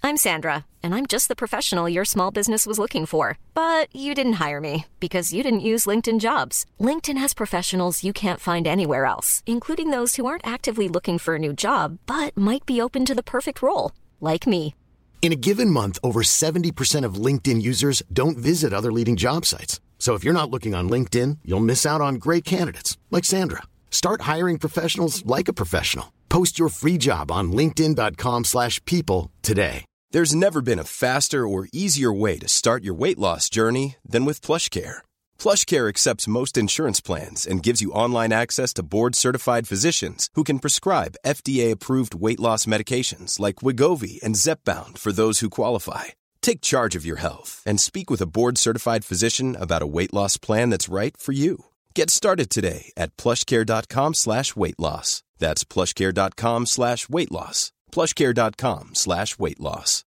I'm Sandra, and I'm just the professional your small business was looking for. But you didn't hire me because you didn't use LinkedIn jobs. LinkedIn has professionals you can't find anywhere else, including those who aren't actively looking for a new job but might be open to the perfect role, like me. In a given month, over 70% of LinkedIn users don't visit other leading job sites. So if you're not looking on LinkedIn, you'll miss out on great candidates like Sandra. Start hiring professionals like a professional. Post your free job on linkedin.com/people slash people today. There's never been a faster or easier way to start your weight loss journey than with PlushCare. PlushCare accepts most insurance plans and gives you online access to board-certified physicians who can prescribe FDA-approved weight loss medications like Wigovi and Zepbound for those who qualify. Take charge of your health and speak with a board-certified physician about a weight loss plan that's right for you. Get started today at plushcare.com slash weight loss. That's plushcare.com slash weight loss. plushcare.com slash weight loss.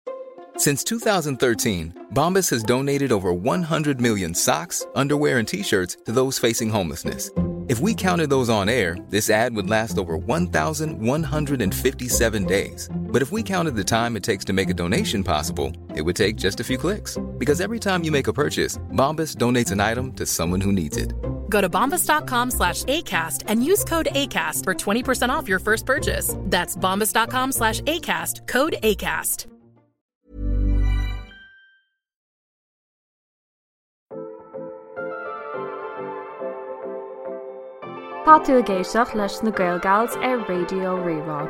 Since 2013, Bombas has donated over 100 million socks, underwear, and t shirts to those facing homelessness. If we counted those on air, this ad would last over 1,157 days. But if we counted the time it takes to make a donation possible, it would take just a few clicks. Because every time you make a purchase, Bombas donates an item to someone who needs it. Go to bombas.com slash ACAST and use code ACAST for 20% off your first purchase. That's bombas.com slash ACAST, code ACAST. Tá tú ag éisteacht leis na Gaelgals ar Raidió Rí-Rá.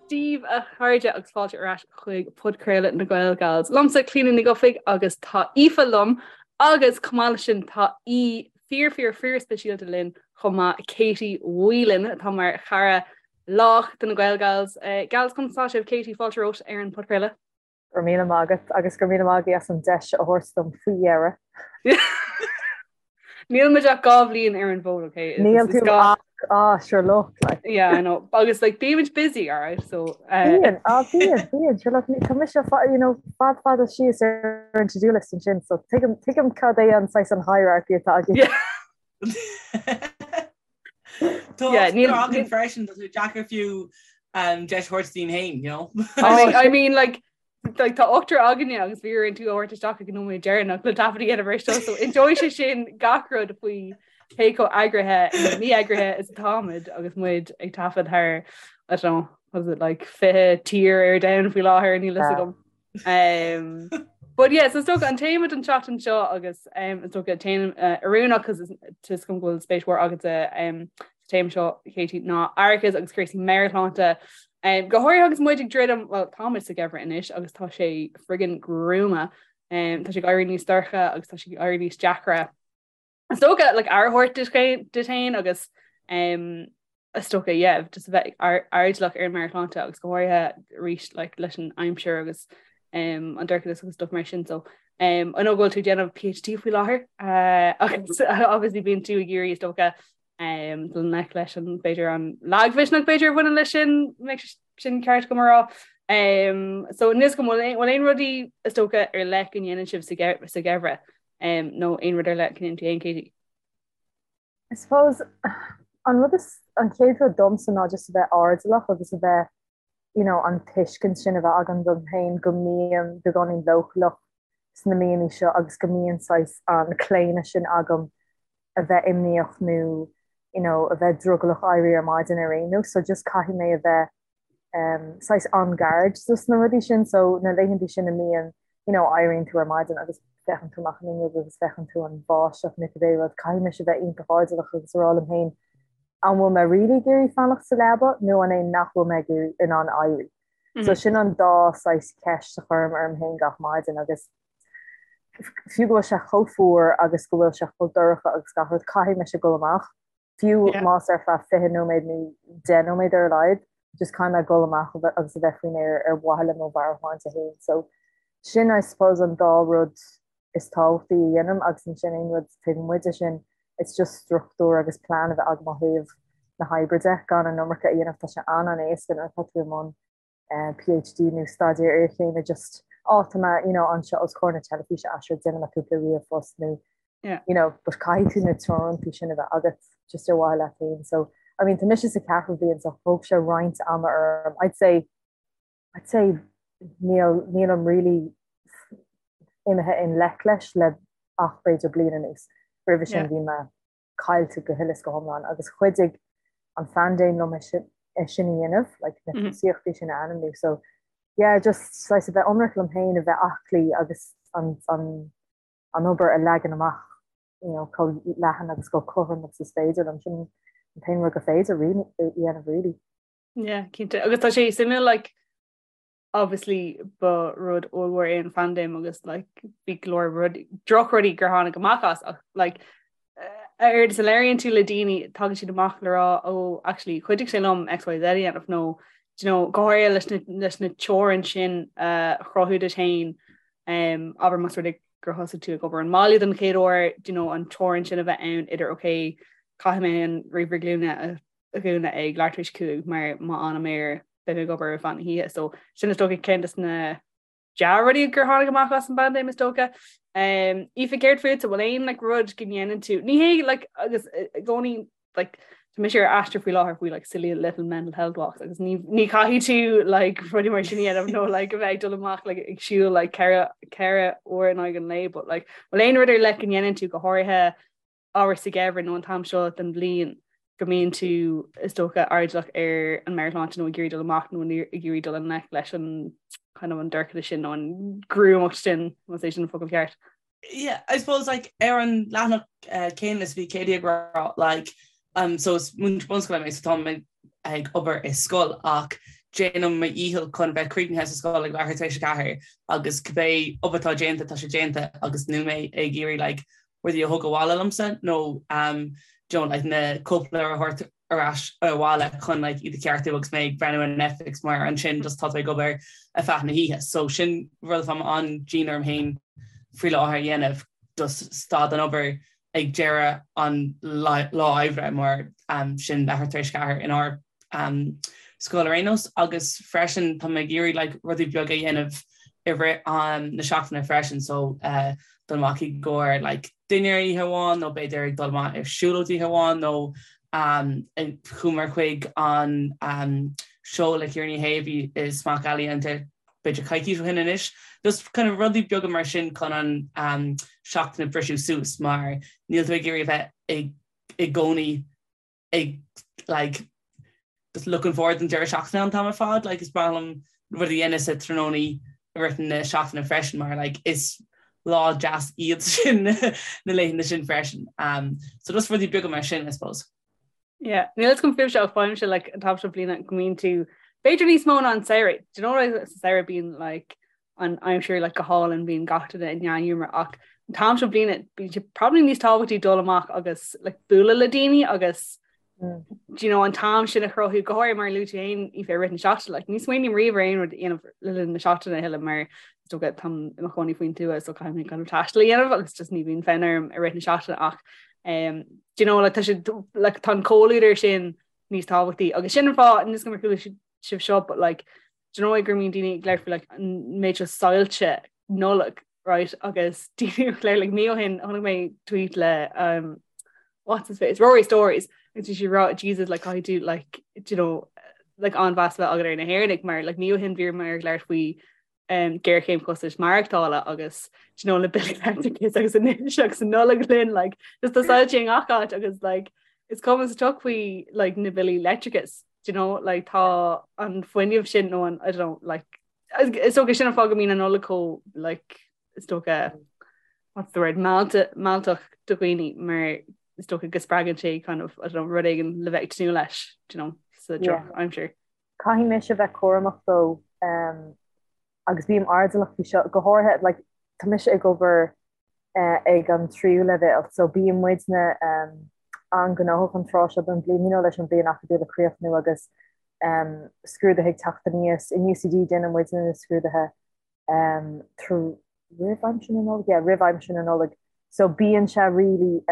Dia daoibh a chairde agus fáilte ar ais chuig podchraoladh na Gaelgals. Liomsa Clíona Ní Dhufaigh agus tá Aoife liom agus chomh maith leis sin tá aoi fíor fíor fíor speisialta linn chomh maith Katie Whelan atá mar chara lách de na Gaelgals. Gals conas tá sibh Katie fáilte romhat ar an podchraoladh. Go raibh míle maith agat agus go raibh míle maith agaibh as an deis a thabhairt dom faoi dheireadh. Níl muid ach 2 bhliain ar an bhfód, okay? Níl tú ach ah, sure look like. Yeah, I know. Agus like bímid busy, all right? So uh... Bíonn, ah bíonn, bíonn. Sure look, tá mise you know, fad fada síos ar an to-do list ansin, so tuigim tuigim cad é an saghas an hierarchy atá agaibh. Yeah. Tá yeah, níl againn freisin tá sé deacair fiú um, deis a thabhairt dúinn féin, you know? I mean, I mean like like tá ochtar againne agus bhí orainn tú a thabhairt isteach ag an nóiméad deireanach le taifead a dhéanamh air seo, so inseoidh sé sin gach rud faoi cé chomh eagraithe nó mí-eagraithe is atáimid agus muid ag taifead thar I don't know, was it like 20 tír ar domhan faoi láthair níl fhios agam. Um, but yeah, so is dócha an téama don tseachtain seo agus um, is dócha téama uh, oiriúnach cos tá fhios agam go bhfuil spéis mhór agat um, sa téama seo Katie ná aireachas agus cúrsaí meabhairshláinte. Um, go háirithe agus muid ag druidim, well táimid sa gheimhreadh anois agus tá sé friggin gruama. Um, tá sé ag éirí níos dorcha agus tá sé ag éirí níos deacra. Is dócha like, aire a thabhairt duit féin agus um, is dócha yeah, just a bheith airdeallach ar an meabhairshláinte agus go háirithe arís like, leis an aimsir agus um, an dorchadas agus stuff mar sin so um, I know go bhfuil tú ag déanamh PhD faoi láthair uh, agus obviously bíonn tú ag iarraidh is dócha um, dul i ngleic leis an b'fhéidir an lagmhisneach b'fhéidir a bhaineann leis sin sin ceart agam a rá. Um, so níl fhios agam bhfuil aon rudaí is dócha ar leith go ndéanann sibh sa gheimhreadh um, nó aon rud ar leith go ndéanann tú féin Katie? I suppose an rud is an chéad rud domsa ná just a bheith airdeallach agus a bheith you know, an tuiscint sin a bheith agam dom féin go mbím beagáinín leochaileach sna míonna seo agus go mbíonn saghas an claonadh sin agam a bheith imníoch nó you know, a bheith drogallach éirí ar maidin ar aon nós so just caithfidh mé a bheith um, saghas on guard dos na rudaí sin so na laethanta sin a mbíonn you know, éiríonn tú ar maidin agus féachann tú amach an fhuinneog agus féachann tú an bháisteach nó cibé rud caithfidh mise a bheith iontach airdeallach agus a rá liom féin an bhfuil mé really ag iarraidh fanacht sa leaba nó an é nach bhfuil mé ag iarraidh in ann éirí. So sin an dá saghas ceist a chuirim orm féin gach maidin agus fiú go bhfuil sé chomh fuar agus go bhfuil sé chomh dorcha agus gach rud, caithfidh mise dul amach, fiú más ar feadh 20 nóiméad nó 10 nóiméad ar a laghad, just caithfidh mé dul amach agus a bheith faoin aer ar mhaithe le mo mheabhairshláinte féin. So sin I suppose an dá rud is tábhachtaí a dhéanaim agus ansin aon rud taobh amuigh de sin, it's just struchtúr agus plean a bheith agam ó thaobh na hoibre de, gan an iomarca a dhéanamh, tá sé an-an-éasca nuair atá tú i mbun PhD nó staidéar iarchéime just á tá mé you know anseo os comhair na teilifíse ah sure déanfaidh mé cúpla ríomhphost nó you know but caithfidh tú na teorantaí sin a bheith agat. just ar mhaithe leat féin. So I mean tá mise sa ceathrú bliain so thóg sé roinnt ama orm. I'd say I'd say níl nílim really imithe i ngleic leis le ach b'fhéidir bliain anuas. Roimhe sin bhí mé caillte go huile is go hiomlán agus chuidigh an phaindéim liom é sin é sin a dhéanamh, like na tosaíochtaí sin a ainmniú. So yeah, just saghas a bheith ionraic liom féin, a bheith aclaí agus an an an obair a leagan amach you know, chomh leathan agus chomh cothrom agus is féidir liom. Sin an t-aon rud gur féidir a dhéanamh really. Yeah, cinnte. Agus tá sé suimiúil like obviously ba rud ollmhór é an phaindéim agus like bhí go leor rud drochrudaí gur tháinig amach as ach like a oiread is a labhraíonn tú le daoine tagann siad amach le rá ó oh, actually chuidigh sé liom XYZ a dhéanamh nó you know, go háirithe leis na, leis na teorainn sin uh, a chruthú duit féin um, abair más rud é gur thosaigh tú ag obair ón mbaile don chéad uair, you know, an teorainn sin a bheith ann idir ok, caithfidh mé an ríomhaire glúine a dhúnadh ag leathuair tar éis 5 mar má fhanaim air beidh mé ag obair ar feadh na hoíche. So sin is dócha ceann des na dea-rudaí gur tháinig amach as an bpaindéim is dócha. Um, Aoife céard fútsa bhfuil aon like, rud go ndéanann tú ní hé like, agus i gcónaí like, Tá mise ar aistear faoi láthair faoi like silly little mental health walks agus ní ní caithfidh tú like rudaí mar sin a dhéanamh nó like a bheith ag dul amach like ag siúl like ceithre uair in aghaidh an lae but like bhfuil aon rud ar leith go ndéanann tú go háirithe abair sa gheimhreadh nó an t-am seo den bhliain go mbíonn tú is dócha airdeallach ar an meabhairshláinte nó ag iarraidh dul amach nó ag iarraidh dul i ngleic leis an kind of an dorchadas sin nó an ghruamacht sin más é sin an focal ceart. Yeah, I suppose like ar an leathanach uh, céanna is bhí Katie ag rá like um, so is múinteoir bunscoile mé so tá mé ag obair i scoil ach déanaim mo dhícheall chun bheith críochnaithe sa scoil ag leathuair tar éis a 4 agus cibé obair atá déanta tá sé déanta agus níl mé ag iarraidh like rudaí a thógáil abhaile liomsa nó um, you know, like na cóipleabhair a thabhairt ar ais abhaile chun like iad a cheartú agus mé ag breathnú ar Netflix mar ansin just tá tú ag obair ar feadh na hoíche. So sin rud atá mé an-dian orm féin faoi láthair a dhéanamh just stad den obair ag deireadh an lá oibre mar um, sin leathuair tar éis a 4 inár um, scoil ar aon nós agus freisin tá mé ag iarraidh like, rudaí beaga a dhéanamh i rith um, na seachtaine freisin so uh, dul amach i gcomhair like, dinnéar oíche amháin nó b'fhéidir ag dul amach ar siúlóid oíche amháin nó um, chuamar chuig an um, seó le Ciara Ní hÉ a bhí i Smock Alley an b'fhéidir coicís ó shin anois. Just kind of rudaí beaga mar sin chun an um, seachtain a briseadh suas mar níl tú ag iarraidh a bheith i, i gcónaí ag like just looking forward don deireadh seachtaine an t-am ar fad like is breá liom rudaí a dhéanamh sa tráthnóna i rith na seachtaine freisin mar like is lá deas iad sin na laethanta sin freisin. Um, so just rudaí beaga mar sin I suppose. Yeah, níl a fhios agam fúibhse ach faighimse like an t-am seo bliana go mbíonn tú b'fhéidir níos mó ná an samhradh. Do you know what sa samhradh bíonn like an aimsir like go hálainn bíonn gach duine i ndea-ghiúmar ach an t-am seo bliana bíonn sé probably níos tábhachtaí dul amach agus like bualadh le daoine agus mm. do you know an t-am sin a chruthú go háirithe mar luaigh tú féin Aoife i rith na seachtaine like ní smaoiním riamh ar aon rud a dhéanamh le linn na seachtaine a thuilleadh mar is dócha táim i mo chónaí faoin tuath so caithfidh mé kind of taisteal a dhéanamh agus just ní bhíonn fonn orm i rith na seachtaine ach um, do you know like tá sé like tá an comhluadar sin níos tábhachtaí agus sin an fáth níl a fhios agam ar chuala sibh seo but like do you know gur mbíonn daoine ag labhairt faoi like an méid seo soilse Nollag right agus daoine ag labhairt like mí ó shin chonaic mé tweet le um, what's his face Rory Stories agus bhí sé ag rá Jesus like caithfidh tú like do you know like an-mheas a bheith agat ar na hÉireannaigh mar like mí ó shin bhí mar ag labhairt faoi um, géarchéim costais maireachtála agus do you know le billí leictreachais agus anois agus an Nollaig linn like just tá soilse i ngach áit agus like is cuma sa tsioc faoi like na billí leictreachais do you know, like, tá an fuinneamh sin nó an, I don't know, like, is dócha sin an fáth go mbíonn an Nollaig chomh, like, is dócha, what's the word, mealltach do dhaoine mar is dócha go spreagann sé kind of, I don't know, rud éigin le bheith ag tnúth leis, do you know, sa drochaimsir. Caithfidh mise bheith cúramach though, um, agus bím airdeallach faoi seo, go háirithe, like, tá mise ag obair ag an tríú leibhéal so bíonn muidne an-ghnóthach an tráth seo den bhliain, you know, leis an bhliain acadúil a chríochnú agus scrúduithe ag teacht aníos. In UCD déanann muidne na scrúduithe roimh aimsir na Nollag, yeah, roimh aimsir na Nollag. So bíonn sé really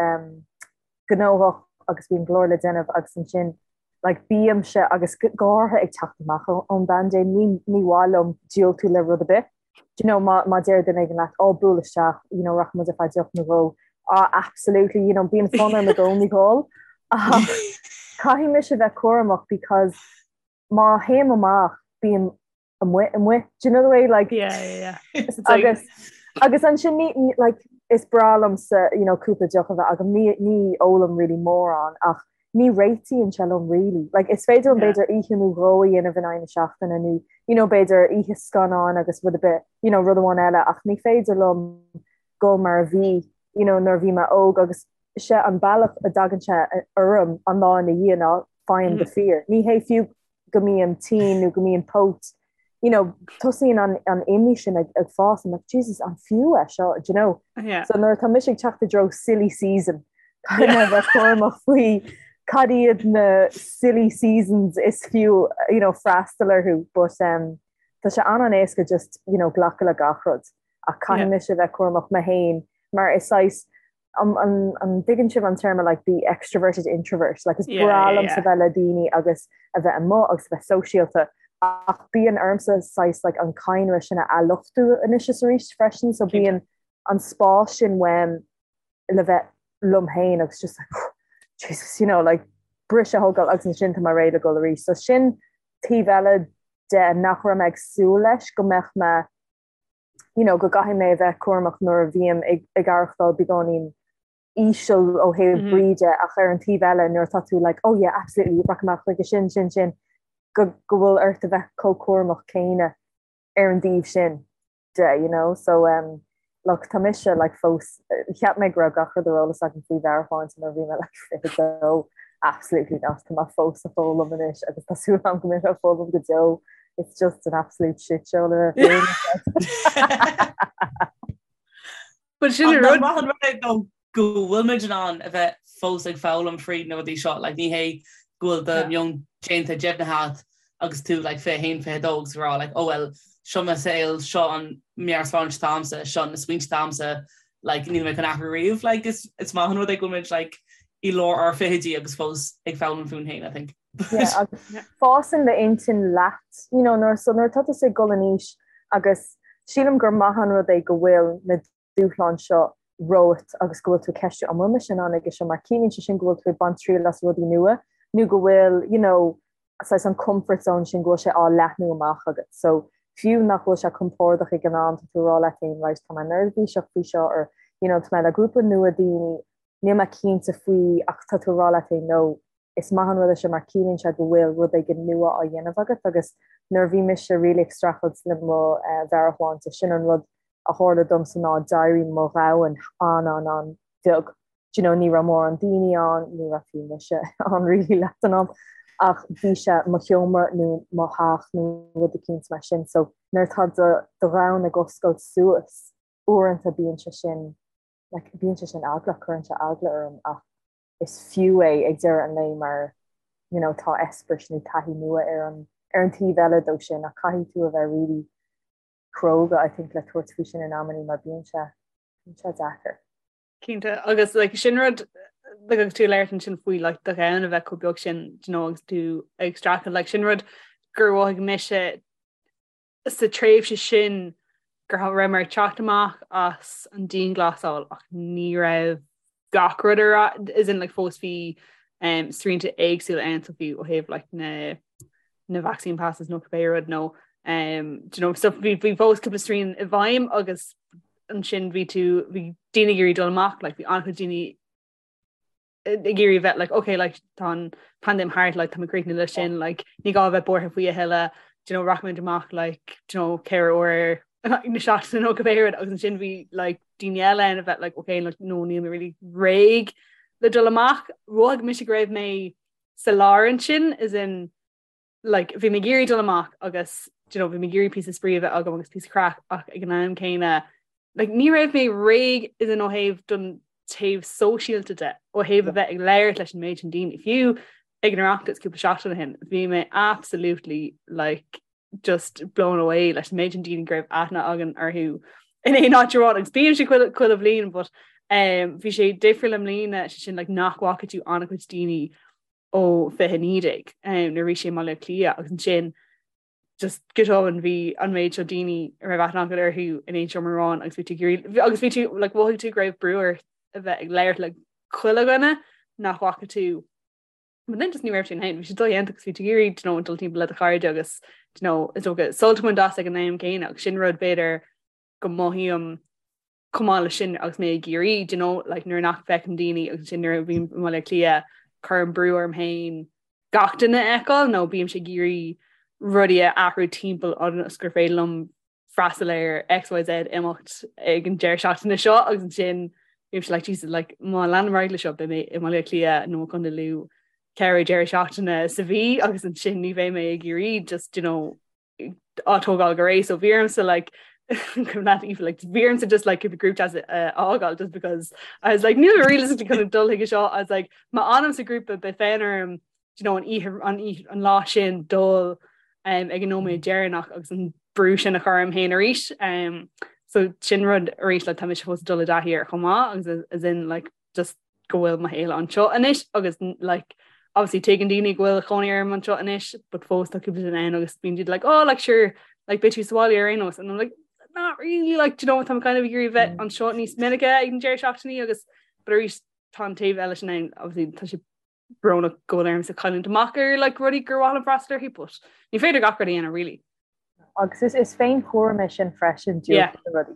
gnóthach agus bíonn go leor le déanamh agus ansin like bímse agus go háirithe ag teacht amach ón bpaindéim ní ní mhaith liom diúltú le rud ar bith. Do you know má má deir duine éigin leat ó buail isteach you know rachaidh muid ar feadh deoch nó dhó ah absolutely you know bíonn fonn orm i gcónaí dhul. Ach caithfidh mise a bheith cúramach because má théim amach bím amuigh amuigh. Do you know the way like Yeah, yeah, yeah. It's like- agus agus ansin ní ní- like is breá liomsa you know cúpla deoch a bheith agam ní ní ólaim really mórán ach ní réitíonn sé liom really. Like is féidir liom Yeah. b'fhéidir oíche nó dhó a dhéanamh in aghaidh na seachtaine nó you know b'fhéidir oíche scannáin agus rud ar bith you know rud amháin eile ach ní féidir liom dul mar a bhí you know nuair a bhí mé óg agus sé an bealach a dtagann sé orm an lá ina dhiaidh ná faighim the fear. Ní hé fiú go mbím tinn nó go mbím póit, you know, tosaíonn an, an imní sin ag, ag fás, I'm like, Jesus, an fiú é seo, do you know? Yeah. So nuair atá mise ag teacht i dtreo silly season, caithfidh mé a bheith cúramach faoi cad iad na silly seasons is fiú, you know, freastal orthu, but um, tá sé an-an-éasca just, you know, glacadh le gach rud. Ach caithfidh Yeah. mise a bheith cúramach mé féin, mar is saghas An dtuigeann sibh an téarma like the extroverted introvert? Like is breá liomsa bheith le daoine agus a bheith amuigh agus a bheith sóisialta ach bíonn ormsa saghas like an cadhnra sin a athluchtú anois is arís freisin so bíonn an spás sin uaim le bheith liom féin agus just like Jesus you know like briseadh a thógáil agus ansin tá mé réidh le dul arís. So sin taobh eile de nach raibh mé ag súil leis go mbeadh mé you know, go gcaithfidh mé a bheith cúramach nuair a bhím ag, ag aireachtáil beagáinín íseal ó thaobh mm -hmm. brí de ach ar an taobh eile nuair atá tú like, oh yeah, absolutely, rachaidh mé chuige sin, sin, sin, go, go bhfuil ort a bheith chomh cúramach céanna ar an dtaobh sin de, you know, so um, look, tá mise like, fós, cheap mé go raibh gach rud ar eolas agam faoi mheabhairshláinte nuair a bhí mé like, 22, absolutely not, tá mé fós ag foghlaim anois agus tá súil agam go mbeidh mé ag foghlaim go deo. It's just an absolute shit show le bheith But sin an rud. Maith an rud é though go bhfuil muid in ann a bheith fós ag foghlaim fríd na rudaí seo, like ní hé go bhfuil do meon déanta deimhnithe agat agus tú like 21, 22 agus ag rá like oh well seo mo saol, seo an meabhairshláinte atá agamsa, seo na smaointe atá agamsa, like níl mé chun athrú riamh, like is is maith an rud é go bhfuil muid like i lár ár fichidí agus fós ag foghlaim fúinn féin I think. Yeah, agus fásann d'intinn leat, you know, nuair so nuair atá tusa ag dul in aois agus sílim gur maith an rud é go bhfuil na dúshláin seo romhat agus go bhfuil tú ag ceistiú an bhfuil mise in ann aige seo mar ciallaíonn sé sin go bhfuil tú ag baint triail as rudaí nua nó go bhfuil, you know, saghas an comfort zone sin go bhfuil sé á leathnú amach agat. So fiú nach bhfuil sé compordach ag an am tá tú ag rá leat féin right tá mé neirbhíseach faoi seo or you know tá mé le grúpa nua daoine níl mé cinnte faoi ach tá tú ag rá leat féin no is maith an rud é seo mar ciallaíonn sé go bhfuil rud éigin nua á dhéanamh agat agus nuair a bhí mise really ag streachailt le mo mheabhairshláinte sin an rud a tharla domsa ná d'éirigh mo dhomhan an-an-an-bheag. Do you know, ní raibh mórán daoine ann, ní raibh fiú mise ann really leath den am, ach bhí sé mo sheomra nó mo theach nó rud eicínt mar sin. So nuair atá do do dhomhan ag oscailt suas, uaireanta bíonn sé sin, like, bíonn sé sin eaglach, cuireann sé eagla orm ach is fiú é ag deireadh an lae mar, you know, tá eispéireas nó taithí nua ar an ar an taobh eile dó sin ach caithfidh tú a bheith really cróga, I think, le tabhairt faoi sin in amannaí mar bíonn sé bíonn sé deacair. Cinnte, agus like, sin rud like, agus tú ag labhairt ansin faoi like, do dhomhan a bheith chomh beag sin do you know, agus tú ag streachailt like, sin rud gur mhothaigh mise sa tréimhse sin go raibh mé ag teacht amach as an dianghlasáil ach ní raibh gach rud ar as in like fós bhí um, srianta éagsúla ann so bhí ó thaobh like na na vaccine passes nó cibé rud nó um, do you know, so bhí bhí fós cúpla srian i bhfeidhm agus ansin bhí tú bhí daoine ag iarraidh dul amach like bhí an-chuid daoine ag iarraidh bheith like okay like tá an paindéim thart like tá mé críochnaithe leis sin like ní gá bheith buartha faoi a thuilleadh do you know rachaimid amach like do you know ceithre uair na seachtaine nó cibé rud agus ansin bhí like daoine eile ann a bheith like okay like no níl mé really réidh le dul amach mhothaigh mise go raibh mé sa lár ansin as in like bhí mé ag iarraidh dul amach agus do you know bhí mé ag iarraidh píosa spraoi a bheith agam agus píosa craic ach ag an am céanna like ní raibh mé réidh as in ó thaobh don taobh sóisialta de ó thaobh a bheith ag labhairt leis an méid sin daoine fiú ag an Oireachtas cúpla seachtain ó shin bhí mé absolutely like just blown away leis an méid sin daoine go raibh aithne againn orthu in aon áit amháin agus bíonn sé chuile chuile bhliain but um, bhí sé difriúil i mbliana sé sin like nach bhfaca tú an-chuid daoine ó 2019 nuair a bhí sé i mBaile Átha Cliath agus ansin just go tobann bhí an méid seo daoine a raibh aithne agat orthu in aon seomra amháin agus bhí tú ag iarraidh agus bhí tú like mhothaigh tú go raibh brú ort a bheith ag labhairt le chuile dhuine nach bhfaca tú. But then just ní raibh sin ann, bhí sé dodhéanta agus bhí tú ag iarraidh do you know, dul timpeall le do chairde agus do you know, is dócha sult a bhaint as ag an am céanna agus sin rud b'fhéidir go mothaím chomh maith leis sin agus mé i gCiarraí, do you know, like nuair nach bhfeicim daoine agus sin nuair a bhím i mBaile Átha Cliath cuirim brú orm féin gach duine a fheiceáil nó bímse ag iarraidh rudaí a athrú timpeall ionas gur féidir liom freastal ar XYZ imeacht ag an deireadh seachtaine seo agus ansin bímse like Jesus like má leanaim ar aghaidh le seo beidh mé i mBaile Átha Cliath nó i gContae Lú ceithre deireadh seachtaine sa mhí agus ansin ní bheidh mé i gCiarraí just you know á tógáil go réidh so bhí ormsa like not even like bhí ormsa just like the group chat uh, fhágáil just because I was like níl realistically kind of dul chuige seo I was like má fhanaim sa grúpa beidh fonn orm you know, an oíche an oíche an lá sin dul um, ag an nóiméad deireanach agus an brú sin a chur orm féin arís. Um, so sin rud arís le tá mise fós ag dul i dtaithí air chomh maith agus as in like just go bhfuil mo shaol anseo anois agus like obviously tuigeann daoine go bhfuil cónaí orm anseo anois but fós tá cúpla duine ann agus bíonn siad like oh like sure like beidh tú sa bhaile ar aon nós and I'm like not really like do you know tá kind of ag iarraidh bheith anseo níos minice ag an deireadh seachtainí agus but arís tá an taobh eile sin ann obviously tá sé brónach go bhfuil ormsa cailliúint amach ar like rudaí gur mhaith liom freastal orthu but ní féidir gach rud a dhéanamh really. Agus is is féinchúram é sin freisin yeah. na rudaí.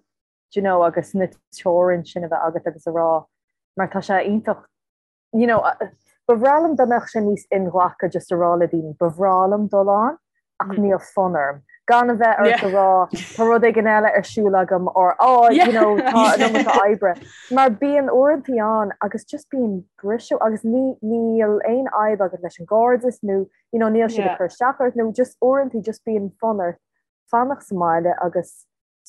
Do you know agus na teorainn sin a bheith agat agus a rá mar tá sé iontach you know ba bhreá liom dá mbeadh sé níos inghlactha just a rá le daoine ba bhreá liom dul ann ach níl fonn orm. Gan a bheith ort a rá tá rud éigin eile ar siúl agam or oh you know tá an iomarca oibre. Mar bíonn uaireantaí ann agus just bíonn briseadh agus ní níl aon fhadhb agat leis an gcairdeas nó you know níl siad ag cur isteach ort nó just uaireantaí just bíonn fonn ort fanacht sa mbaile agus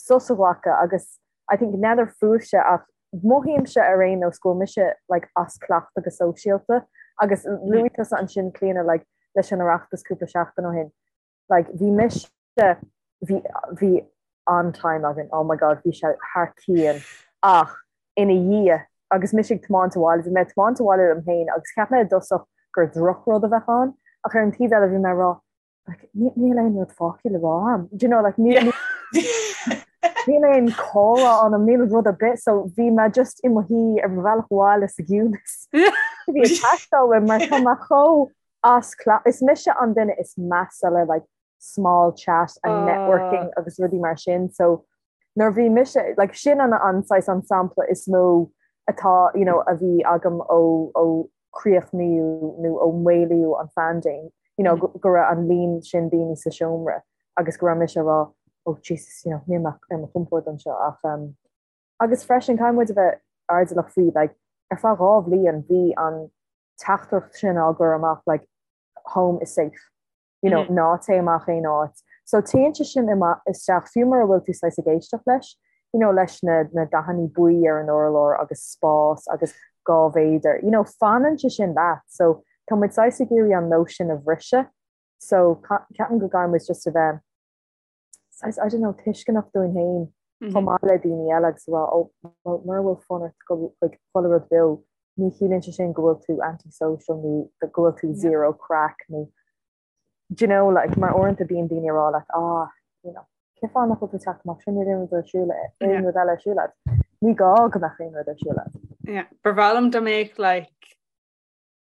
sos a ghlacadh agus I think n'fheadar fúibhse ach mothaímse ar aon nós go bhfuil mise like as cleachtadh go sóisialta agus luaigh tusa ansin Clíona like leis an Oireachtas cúpla seachtain ó shin like bhí mise bhí bhí an-time againn oh my god bhí sé thar cionn ach ina dhiaidh agus mise ag tiomáint abhaile bhí mé ag tiomáint abhaile liom féin agus cheap mé i dtosach gur drochrud a bheadh ann ach ar an taobh eile bhí mé ag rá like, níl aon rud fágtha le rá agam. Do you know, like, níl níl aon chomhrá ann, níl rud ar bith, so bhí mé just i mo shuí ar mo bhealach abhaile sa gciúnas. Bhí ag teastáil uaim mar tá mé chomh as cleachtadh. Is mise an duine is measa le like, small chat and networking agus rudaí mar sin, so nuair bhí mise, like, sin an an saghas an sampla is mó atá, you know, a bhí agam ó ó críochnaíodh nó ó maolaíodh an phaindéim, you know, go raibh an líon sin daoine sa seomra agus go raibh mise ag rá oh Jesus, you know, níl mé ar mo chompord anseo ach um, agus freisin caithfidh muid a bheith airdeallach faoi like, ar feadh 2 bhliain bhí an teachtaireacht sin á gcur amach like, home is safe. you know, ná téigh amach aon áit. So téann sé sin isteach, fiú mura bhfuil tú saghas ag éisteacht leis, you know, leis na, na dathanna buí ar an urlár agus spás agus 2 mhéadar, you know, fanann sé sin leat. So tá muid saghas ag iarraidh an nós sin a bhriseadh. So ceapaim go gcaithfidh muid just a bheith saghas, I don't know, tuisceanach dúinn féin chomh maith le daoine eile agus a rá, oh, well, mura bhfuil fonn ort dul chuig chuile rud beo, ní chiallaíonn sé sin go bhfuil tú anti-social nó go bhfuil tú zero craic nó, do you know, like, mar uaireanta bíonn daoine ag rá leat, ah, you know, cén fáth nach bhfuil tú ag teacht amach sin, níl aon rud ar siúl, aon rud eile ar siúl agat. Ní gá go mbeadh aon rud ar siúl agat. Yeah, ba bhreá liom dá mbeadh, like,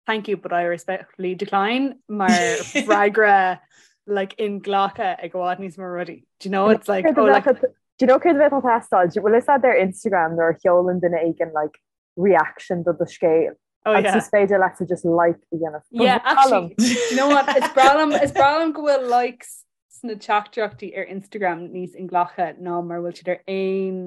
Thank you but I respectfully decline mar freagra like inghlactha ag i bhfad níos mó rudaí. Do you know it's like oh like Do you know céard a bheadh ag teastáil? Bhfuil fhios agat ar Instagram nuair a sheolann duine éigin like reaction do do scéal? Oh, yeah. Agus is féidir leat just like a dhéanamh. Yeah, actually, do you know what? Is breá liom is breá liom go bhfuil likes sna teachtaireachtaí ar Instagram níos inghlactha ná mar bhfuil siad ar aon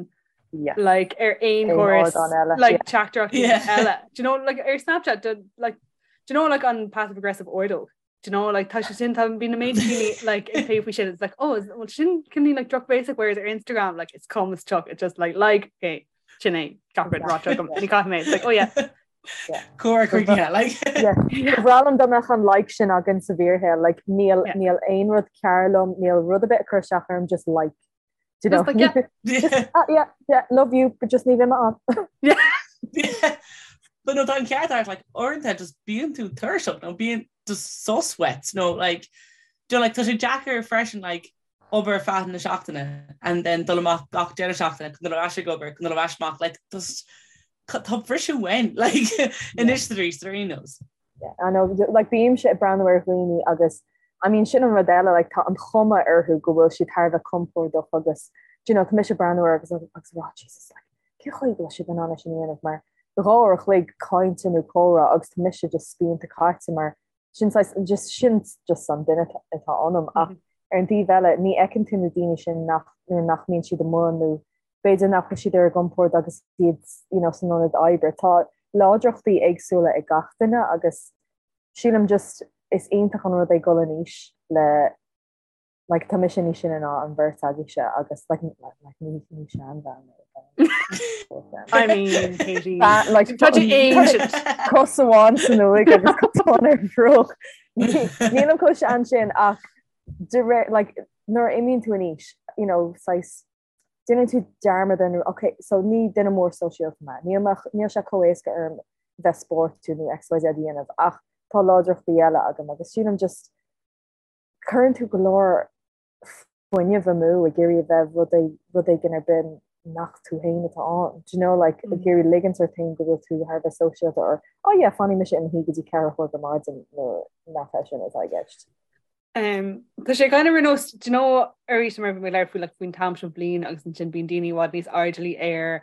Yes. like ar aon Aon chóras ardán eile, like yeah. teachtaireachtaí Yeah. eile. Do you know like ar Snapchat do, like do you know like an passive aggressive ordóg? Do you know like tá sé sin tá bíonn na méid daoine like ag plé faoi sin it's like oh is, well sin cineál like drochbhéasach whereas ar Instagram like it's calm as chalk it's just like like okay sin é gach rud ráite agam ní caithfidh mé it's like oh yeah Comhrá críochnaithe, like. Ba bhreá liom dá mbeadh an like sin againn sa bhfíorshaol, like níl Yeah. níl aon rud cearr liom, níl rud ar bith ag cur isteach orm, just like. Do you know? Just like, yeah. Just, ah, yeah, yeah, love you, but just ní bheidh mé ann. Yeah. But no, tá an ceart agat, like, uaireanta just bíonn tú tuirseach nó bíonn just sos uait nó like, do you know, like, tá sé deacair freisin like, obair ar feadh na seachtaine and then dul amach gach deireadh seachtaine chun dul ar ais ag obair chun dul ar ais amach like just tá briseadh uainn like anois arís ar aon nós. Yeah, I know, like bímse ag breathnú ar dhaoine agus I mean sin an rud eile, like tá an chuma orthu go bhfuil siad thar a bheith compordach agus do you know, tá mise ag breathnú orthu agus agus rá Jesus like cén chaoi go bhfuil siad in ann é sin a dhéanamh mar 2 uair a chloig cainte nó comhrá agus tá mise just spíonta caite mar sin saghas just sin just an duine atá ionam ach ar an taobh eile ní fheiceann tú na daoine sin nach nuair nach mbíonn siad amuigh nó b'fhéidir nach bhfuil siad ar a gcompord agus iad you know, san ionad oibre. Tá láidreachtaí éagsúla ag gach duine agus sílim just is iontach an rud é dul in aois le like tá mise níos sine ná an bheirt agaibhse agus like like ní ní seanbhean mé. I mean Katie like tá tú ancient. Cos amháin san uaigh agus cos amháin ar an bhruach. Nílim chomh sean sin ach de réir like nuair a imíonn tú in aois you know saghas déanann tú dearmad ar nó ok so ní duine mór sóisialta mé, níl mé níl sé chomh éasca orm bheith spórtúil nó XYZ a dhéanamh ach tá láidreachtaí eile agam agus sílim just cuireann tú go leor fuinneamh amú ag iarraidh a bheith rud rud éigin ar bith nach tú féin atá ann. Do you know like ag iarraidh ligint ort féin go bhfuil tú thar a bheith sóisialta or oh yeah fanfaidh mise i mo shuí go dtí ceathrú a chlog ar maidin nuair nach é sin atá i gceist. Um, tá sé kind of ar nós, do you know, arís mar bhí mé ag labhairt faoi like, faoin t-am seo bliain agus ansin bíonn daoine i bhfad níos airdeallaí ar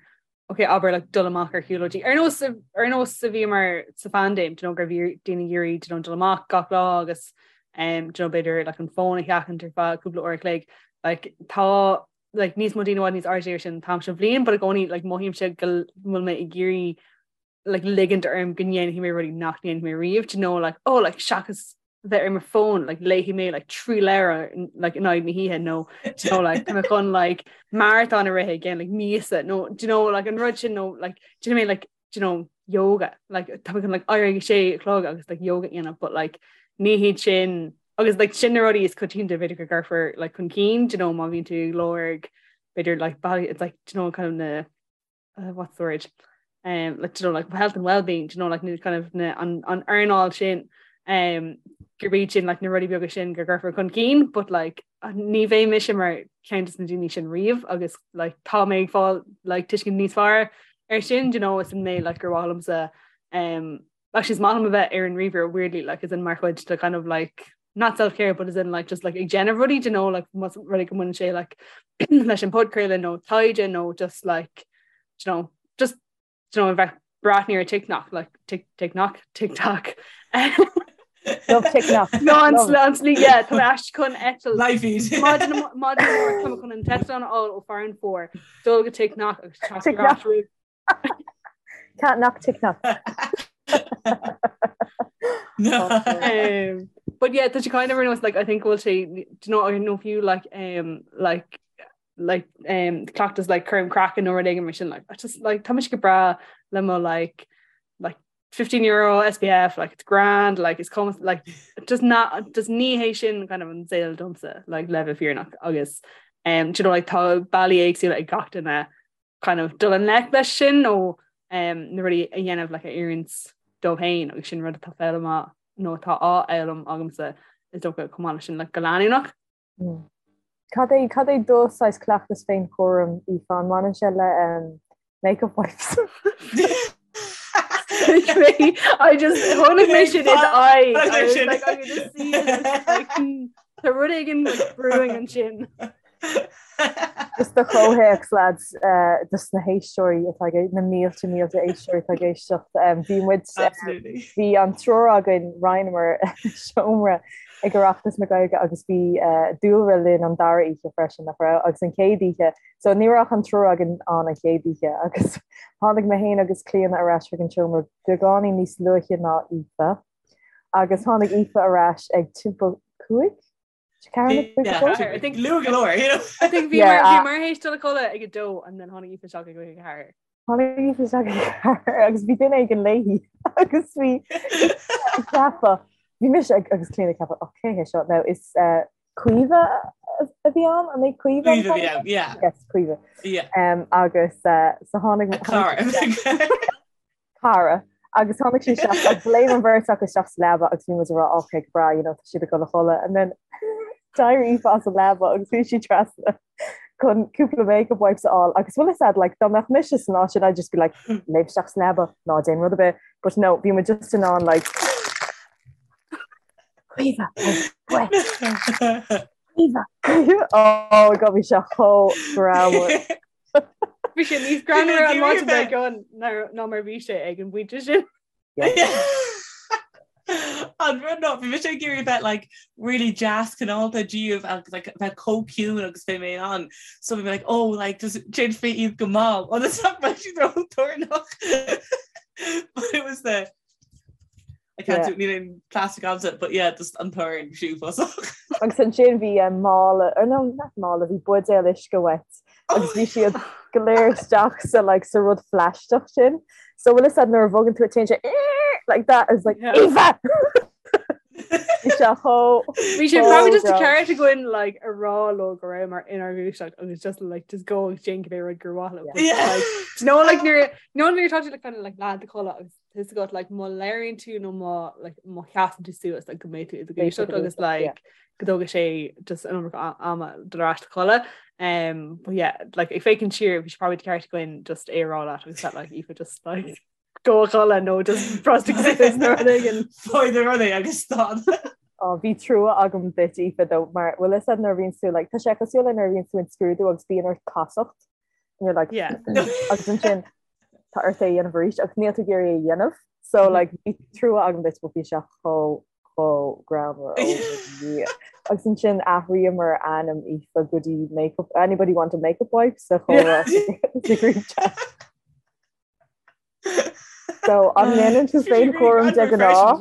ok, abair like, dul amach ar shiúlóidí. Ar nós ar nós a bhíomar sa phaindéim, do you know, gur bhí daoine ag iarraidh do you know, dul amach gach lá agus um, do you know, b'fhéidir like, an fón a sheachaint ar feadh cúpla uair a chloig. Like, tá like, níos mó daoine i bhfad níos airdeallaí ar sin an t-am seo bliain, but i gcónaí like, mothaímse go bhfuil mé ag iarraidh like, ligint orm go ndéanfaidh mé rudaí nach ndéanfaidh mé riamh, do you know, like, oh, like, seachas bheith ar mo fón, like, léifidh mé like, 3 leabhar like, in aghaidh na hoíche nó do you know, like, tá mé chun like, marathon a rith i gceann like, míosa nó do you know, like, an rud sin nó like, do you know, like, do you know, yoga like, tá mé chun like, éirí ag sé a chlog agus like, yoga a dhéanamh but like, ní hiad sin agus like, sin na rudaí is coitianta b'fhéidir go gcuirfear like, chun cinn, do you know, má bhíonn tú ag lorg b'fhéidir like, it's like, do you know, kind of na uh, what's the word um, like, you know, like health and well-being you know, like, kind of na, an, an earnáil sin um, gurb iad sin like, na rudaí beaga sin go gcuirfear chun cinn but like, ní bheidh mise mar ceann de na daoine sin riamh agus like, tá mé ag fáil like, tuiscint níos fearr ar sin you know, is an mé like, gur mhaith liomsa um, actually is maith liom a bheith ar an ríomhaire weirdly like as in mar chuid de kind of like not self-care but as in like just like ag déanamh rudaí you know like más rud é go mbaineann sé like leis an podchraoladh nó taighde nó just like you know just you know bheith breathnú ar TikTok like tik TikTok TikTok Love TikTok. No an an slí yeah tá mé ais chun eitilt Live feed. Maidin maidin amárach tá mé chun an t-eitleán a fháil ó Farranfore dul go TikTok agus teacht ar TikTok. ais roimh Can't knock TikTok. No. Um, but yeah, tá sé kind of ar nós like I think bhfuil sé do you know I know fiú like um like like um cleachtas like cúram craicinn nó rud éigin mar sin like I just like tá mise go breá le mo like like 15 euro SPF like it's grand like it's cuma like just not just ní hé sin kind of an saol domsa like le bheith fírinneach agus um do you know like tá bealaí éagsúla ag gach duine kind of dul i ngleic leis sin nó na rudaí a dhéanamh like a oireann dóibh féin agus sin rud atá foghlamtha nó atá á fhoghlaim agamsa is dócha chomh maith leis sin like go leanúnach. Mm. Cad é cad é do saghas cleachtas féinchúraim Aoife an mbaineann sé le um, makeup wipes? I just chonaic mé sin in eye I was like I could just see it like hmm, tá rud éigin like, brewing ansin. Just do chomhthéacs lads dos na héisteoirí atá ag na mílte mílte éisteoirí atá ag éisteacht bhí muid bhí an triúr againn roinneamar seomra ag Oireachtas na Gaeilge agus bhí Dúlra linn an dara oíche freisin nach raibh agus an chéad oíche so ní raibh ach an triúr againn ann an chéad oíche agus tháinig mé féin agus Clíona ar ais chuig an seomra beagáinín níos luaithe ná Aoife agus tháinig Aoife ar ais ag timpeall 5 I think luath go leor, you know. I think bhí mar bhí mar théis dul a chodladh ag a dó and then tháinig Aoife isteach ag a ceathair. Tháinig Aoife isteach ag a ceathair agus bhí duine éigin léi agus bhí ag ceapadh bhí mise ag agus Clíona ag ceapadh oh cé hé seo now is uh, Caoimhe a bhí ann an é Caoimhe Caoimhe a bhí ann, yeah. Yes, Caoimhe. Yeah. Um, agus uh, so tháinig A cara. cara agus tháinig sí isteach agus léim an bheirt acu isteach sa leaba agus bhí muid ag rá ok go breá you know tá siad ag dul a chodladh and then d'éirigh Aoife as an leaba agus bhí sí trasna chun cúpla makeup wipes a fháil agus bhfuil fhios a'd like dá mbeadh mise san áit sin I'd just be like léim isteach sa leaba ná déan rud ar bith but no bhí muid just in ann like. Caoimhe, Caoimhe, Caoimhe. Oh God, bhí sé chomh greannmhar. Bhí sé níos greannmhaire an maidin dár gcionn ná mar bhí sé ag an bpointe sin. An rud ná, bhí mise ag iarraidh bheith like really deas cineálta díobh agus like bheith chomh ciúin agus bhí mé in ann. So bhí mé like, oh like just déanfaidh iad go mall ionas nach mbeidh siad ró-toranach. But it was the I can't do níl aon plastic agamsa, but yeah, just an torann uafásach. Agus ansin bhí eh, mála, or no, not mála, bhí buidéal uisce uait agus bhí siad go léir isteach sa like sa rud phlaisteach sin. So bhfuil fhios a'd nuair a bhogann tú téann sé like that is like Yeah. Aoife! Bhí sé chomh Bhí sé probably just ceart againn like a rá leo go rabhamar inár ngluaiseacht agus just like just go agus déan cibé rud gur mhaith leo. But, Yeah. like, do you know like nuair no nuair atá tú like kind of like leath i do chodladh agus tá fhios agat like má labhraíonn tú nó má like má sheasann tú suas like go mbeidh tú i do ghluaiseacht agus like go dtógfaidh sé just an iomarca ama dul ar ais a chodladh. Um, but yeah, like ag féachaint siar bhí sé probably ceart againn just é a rá leat agus that like Aoife just like go a chodladh nó just brostaigh suas nó rud éigin. Faigh do rudaí agus stad. Oh, bhí trua agam duit Aoife though mar bhfuil fhios a'd nuair a bhíonn tú like tá sé cosúil le nuair a bhíonn tú in scrúdú agus bíonn ort casacht and you're like Yeah. agus ansin tá ort é a dhéanamh arís agus níl tú ag iarraidh é a dhéanamh so like bhí trua agam duit but bhí sé chomh chomh greannmhar oh my Dhia. Agus ansin athraíomar ainm Aoife go dtí makeup anybody want a makeup wipe sa chomhrá sa group chat. So an ndéanann tú féinchúram de ghnáth?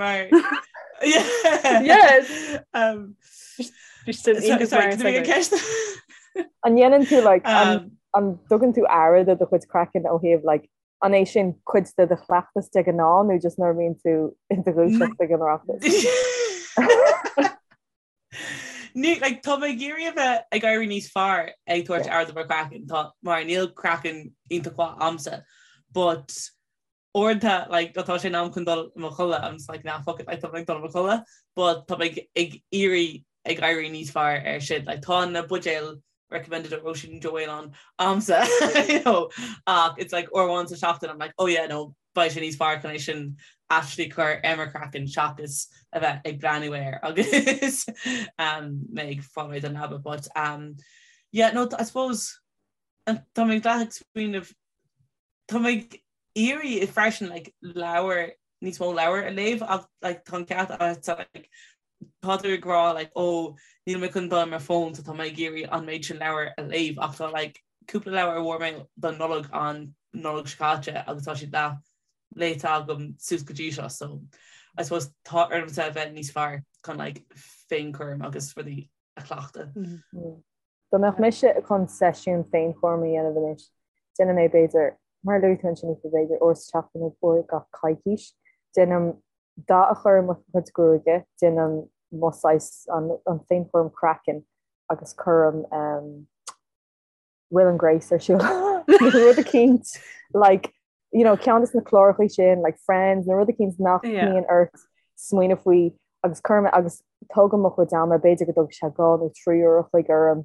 Yes. Um, Bhí sin iontach sorry, mar did we get segue. ceist? An ndéanann tú like an Um, an dtugann tú aire do do chuid craicinn ó thaobh like an é sin cuid de do chleachtas de ghnáth nó just nuair a bhíonn tú i do ghluaiseacht ag an Oireachtas? Ní, like, tá mé ag iarraidh a bheith ag éirí níos fearr ag tabhairt Yeah. aire do mo chraiceann, tá, mar níl craiceann iontach mhaith a'msa, but uaireanta, like, tá sé in am chun dul i mo chodladh, I'm just like, nah, fuck it, like, tá mé ag dul i mo chodladh, but tá mé ag, ag iarraidh ag éirí níos fearr ar sin, like, tá na buidéil recommended ó Róisín Joe Whelan a'msa, you know, ach it's like uair amháin sa seachtain, I'm like, oh yeah, no, beidh sé níos fearr chun é sin actually cur ar mo chraiceann seachas a bheith ag breathnú air agus um, mé ag fáil réidh don leaba. But um, yeah, no, I suppose tá mé ag ag smaoineamh tá mé ag iarraidh freisin like, leabhar níos mó leabhar a léamh ach like, tá an ceart agat like, tá tú ag rá like, oh, níl mé chun dul ar mo phone so tá mé ag iarraidh an méid sin leabhar a léamh ach tá like, cúpla leabhar a bhfuair mé don Nollaig an Nollaig seo caite agus tá siad leath léite agam suas go dtí seo so I suppose tá ormsa a bheith níos fearr chun like, féinchúram agus rudaí a chleachtadh. Mm -hmm. Dá mbeadh mise chun seisiún féinchúraim a dhéanamh anois, déanaim é b'fhéidir, mar a luaigh tú ansin Aoife, b'fhéidir uair sa tseachtain nó uair gach coicís. Déanaim dath a chur ar mo chuid gruaige, déanaim mo saghas an an féinchúram craicinn agus cuirim Will and Grace ar siúl nó rud eicínt like you know ceann de na cláracha sin like Friends nó rud eicínt nach mbíonn ort smaoineamh faoi agus cuirim agus tógaim mo chuid ama b'fhéidir go dtógfaidh sé 2 nó 3 uair a chloig orm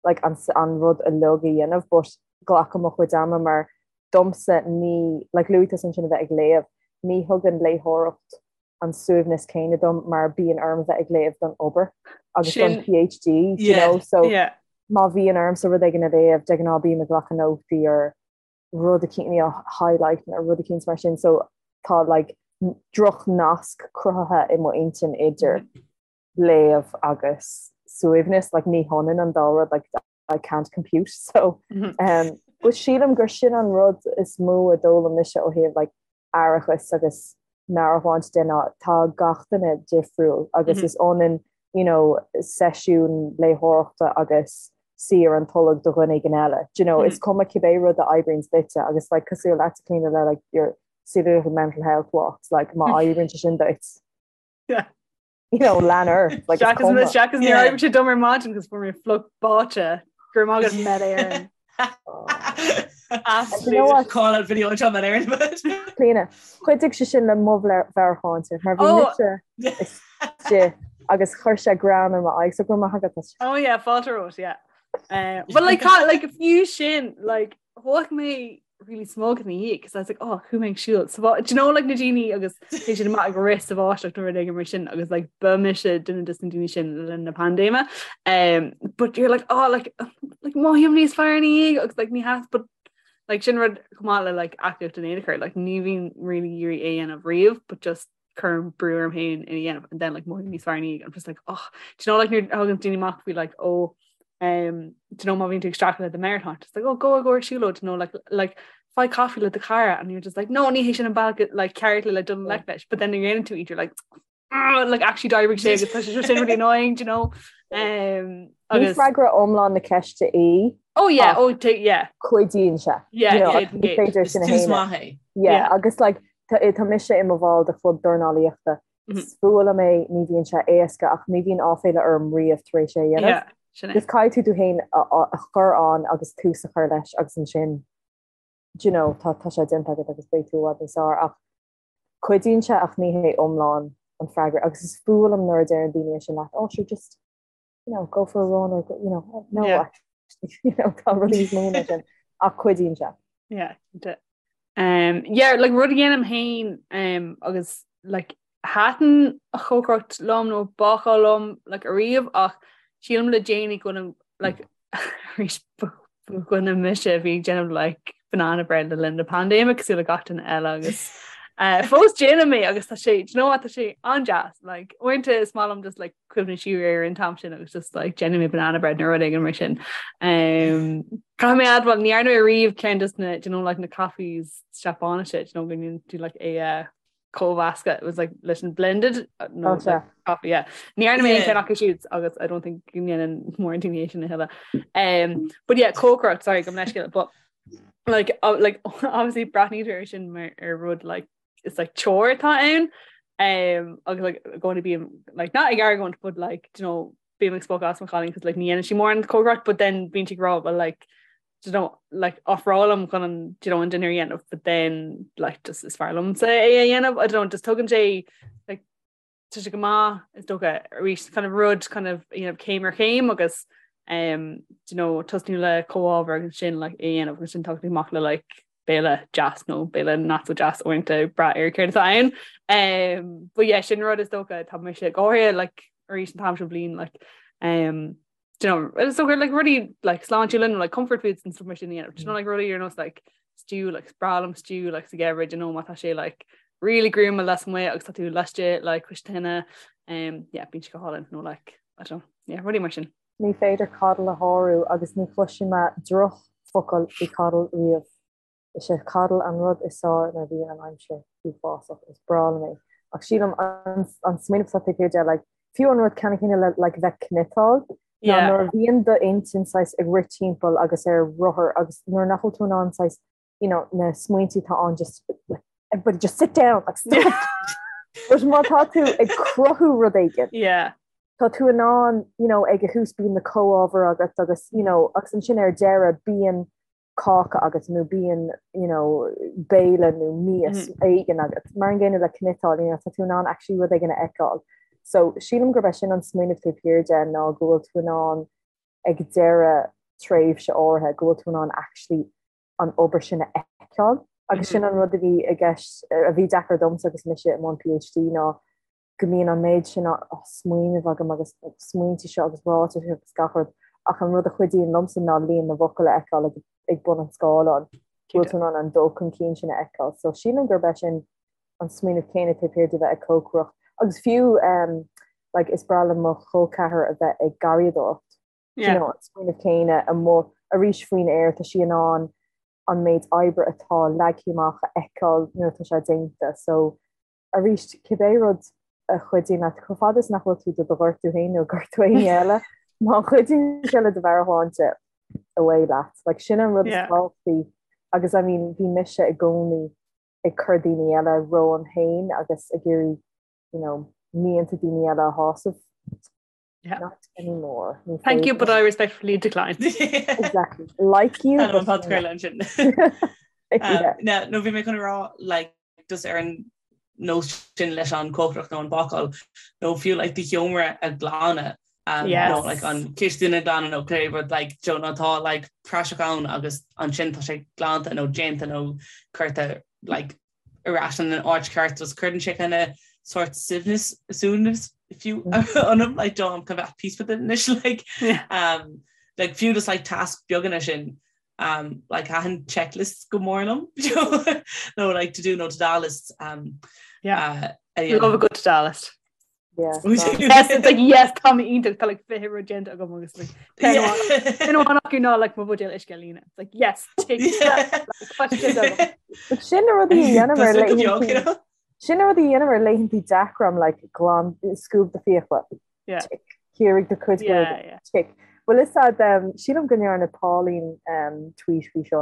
like an an rud uilig a dhéanamh but glacaim mo chuid ama mar domsa ní like luaigh tusa ansin a bheith ag léamh ní thugann léitheoireacht an suaimhneas céanna dom mar bíonn orm bheith ag léamh don obair agus don PhD you know so má bhíonn ormsa rud éigin a léamh de ghnáth bím ag glacadh nótaí ar rud eicínt you know highlight nó rud eicínt mar sin so tá like droch nasc cruthaithe i mo intinn idir léamh agus suaimhneas like ní hionann an dá rud like I can't compute so um, but sílim gur sin an rud is mó a d'fhoghlaim mise ó thaobh like aireachas agus meabhairshláinte de ná tá gach duine difriúil agus mm -hmm. is ionann you know, seisiún léitheoireachta agus suí ar an tolg do dhuine éigin eile. Do you know, mm -hmm. is cuma cibé rud a oibríonn duitse agus like, cosúil leat Clíona le like, your silly little mental health walks like má oibríonn sé sin duit. Yeah. You know, lean ort like, is cuma. Seachas níor oibrigh sé dom ar maidin agus fuair mé fliuch báite go raibh maith agat Met Éireann. You know what? Call out video anseo Met Éireann. Clíona, chuidigh sé sin le mo mheabhairshláinte mar bhí mise istigh agus chuir sé greann ar m'aghaidh so go raibh maith agat as. Oh yeah, fáilte romhat, yeah. Uh, but like, like fiú sin, like, thóg mé really smug ina dhiaidh because I was like oh chuaigh mé ag siúl sa bhá do you know like na daoine agus bhí siad amach ag rith sa bháisteach nó rud éigin mar sin agus like ba mise duine de na daoine sin le linn na paindéime um, but you're like oh like like mothaím níos fearr ina dhiaidh agus like ní has but like sin rud chomh maith le like aclaíocht in aon chor like ní bhím really ag iarraidh é a dhéanamh riamh but just cuirim brú orm féin é a dhéanamh and then like mothaím níos fearr ina dhiaidh I'm just like oh do you know like nuair a thagann daoine amach faoi like oh um do you know má bhíonn tú ag streachailt le do mheabhairshláinte just like oh go go ar siúlóid you know like like faigh caife le do chara and you're just like no ní hé sin an bealach like ceart le dul i ngleic leis but then nuair a dhéanann tú iad you're like oh, like actually d'oibrigh sé agus tá sé sin really annoying do you know um Ní agus freagra iomlán na ceiste í. oh yeah oh yeah Cuidíonn sé. Yeah, You know, yeah, ní féidir Is sin a tús shéanadh. maith é. Yeah, Yeah. agus like tá tá mise i mo bhall de chlub dornálaíochta. Mhm. Is fuath liom é, ní bhíonn sé éasca ach ní bhíonn áiféala orm riamh tar éis é a dhéanamh. Yeah, sin é. Just caithfidh tú tú féin a a a chur ann agus tús a chur leis agus ansin do you know, tá tá sé déanta agat agus beidh tú i bhfad níos fearr ach cuidíonn sé ach ní hé iomlán an freagra agus is fuath liom nuair a deireann daoine é sin leat, oh sure just you know, go for a run or go, you know, no Yeah. actually, you know, tá rudaí níos mó ná sin ach cuidíonn sé. Yeah, cinnte. Um, yeah, like rud a dhéanaim féin um, agus like thaitin an chócaireacht liom nó bácáil liom like ariamh ach sílim le déanaí go bhfuilim like arís ba dhuine mise a bhí ag déanamh like banana bread le linn na paindéime cosúil le gach duine eile agus uh, fós déanaim é agus tá sé do you know what, tá sé an-deas like uaireanta is maith liom just like cuimhneamh siar ar an t-am sin agus just like déanfaidh mé banana bread nó rud éigin mar sin. Um, Caithfidh mé admháil ní dhearna mé riamh ceann des na do you know like na coffees Seapáinise do you know go ndéanann tú like é uh, cómheascadh it was like leis an blended uh, no, Oh, sea. like, coffee yeah. Ní dhearna mé aon Yeah. cheann acu siúd agus I don't think go ndéanann mórán daoine é sin a thuilleadh. Um, but yeah, cócaireacht sorry gabh mo leithscéal but like uh, like obviously breathnaítear air sin mar ar rud like is like chore atá ann um, agus like going to be like not ag argóint but like do you know bím ag spochadh as mo chailín cos like ní dhéanann sí mórán cócaireacht but then bíonn sí ag rá well like do you know like ofrálaim chun an do you know an dinner a dhéanamh but then like just is fearr liomsa é a dhéanamh I don't know just tugann sé like tá sé go maith is dócha arís kind of rud kind of you know céim ar chéim agus um do you know tosnú le comhábhair agus sin like é a dhéanamh agus sin teacht amach le like béile deas nó béile not so deas uaireanta ag brath ar céard atá ann. Um, but yeah, sin rud is dócha tá mise go háirithe like arís an t-am seo bliain like um, do you know, is dócha like rudaí like sláintiúla nó like comfort foods and stuff mar sin a dhéanamh. Do you know like rudaí ar nós like stew like is breá liom stew like sa gheimhreadh do you know má tá sé like really gruama lasmuigh agus tá tú laistigh like cois tine um, yeah, bíonn sé go hálainn nó like I don't know, yeah, rudaí mar sin. Ní féidir coddle a shárú agus ní chloisfidh mé drochfhocal faoi coddle riamh. Is é coddle an rud is fearr nuair a bhíonn an aimsir uafásach. Is breá liom é. Ach sílim an smaoineamh atá taobh thiar de, like, fiú an rud ceannann céanna le like bheith cniotáil, ná nuair a bhíonn d'intinn saghas ag rith timpeall agus ar rothar agus nuair nach bhfuil tú in ann saghas, you know, na smaointe atá ann just like, everybody just sit down, like, stop. But má tá tú ag cruthú rud éigin, Yeah. tá tú in ann, you know, ag a thús bíonn na comhábhair agat agus, you know, agus ansin ar deireadh bíonn cáca agat nó bíonn you know, béile nó mias mm. éigin agat. Mar an gcéanna le cniotáil, you know, tá tú in ann actually rud éigin a fheiceáil. So sílim gurb é sin an smaoineamh taobh thiar de ná go bhfuil tú in ann ag deireadh tréimhse áirithe go bhfuil tú in ann actually an obair sin a fheiceáil. Agus sin an rud a bhí i gceist a bhí deacair domsa agus mise i mbun PhD ná go mbíonn an méid sin smaoineamh agam agus smaointe seo agus ráitis agus gach rud ach an rud a chuidíonn liomsa ná líon na bhfocal a fheiceáil ag bun an scáileáin. Go bhfuil tú in ann an dul chun cinn sin a fheiceáil. So sílim gurb é sin an smaoineamh céanna taobh thiar de bheith ag cócaireacht. Agus fiú um, like, is breá le mo chol ceathar a bheith ag garraíodóireacht. Yeah. You know, an smaoineamh céanna amuigh arís faoin aer tá sí in ann an méid oibre atá leagtha amach a fheiceáil nuair atá sé déanta. So Arís, cibé rud a chuidíonn leat, chomh fada is nach bhfuil tú do do ghortú féin nó gortú éinne eile, má chuidíonn sé le do mheabhairshláinte, away leat. Like, sin an rud is tábhachtaí. Agus, I mean, bhí mise i gcónaí ag cur daoine eile romham féin agus ag iarraidh, you know, mianta daoine eile a shásamh. Yeah. Not anymore. Ní Thank you, but I respectfully decline. Exactly. Like you. But ansin. Yeah. No bhí mé chun rá like, just ar an nós sin leis an cócaireacht nó an bácáil nó fiú like, do sheomra a ghlanadh. Um, yes. nó like an cistin a ghlanadh nó cibé rud like you know atá like praiseach ann agus ansin tá sé glanta nó déanta nó curtha like ar ais in an áit ceart just cuireann sé kind of sort suaimhneas suaimhneas fiú ionam like do I'm kind of at peace with it anois like yeah. um like fiú just like task beaga sin um like thaitin checklists go mór liom nó like to do nó to do lists um yeah uh, yeah. love a good to do list Yeah, yes, it's like yes tá mé iontach tá like 20 rud déanta agam agus like ceann amháin acu ná like mo bhuidéal uisce a líonadh. It's like yes tick But sin na rudaí a dhéanaim ar laethanta sin na rudaí a dhéanaim ar laethanta deacra I'm like glan scuab do fiacla. Yeah. Tick. Ciorraigh do chuid Yeah, yeah. Tick. Bhfuil fhios a'd um, sílim go ndearna Pauline um, tweet faoi seo.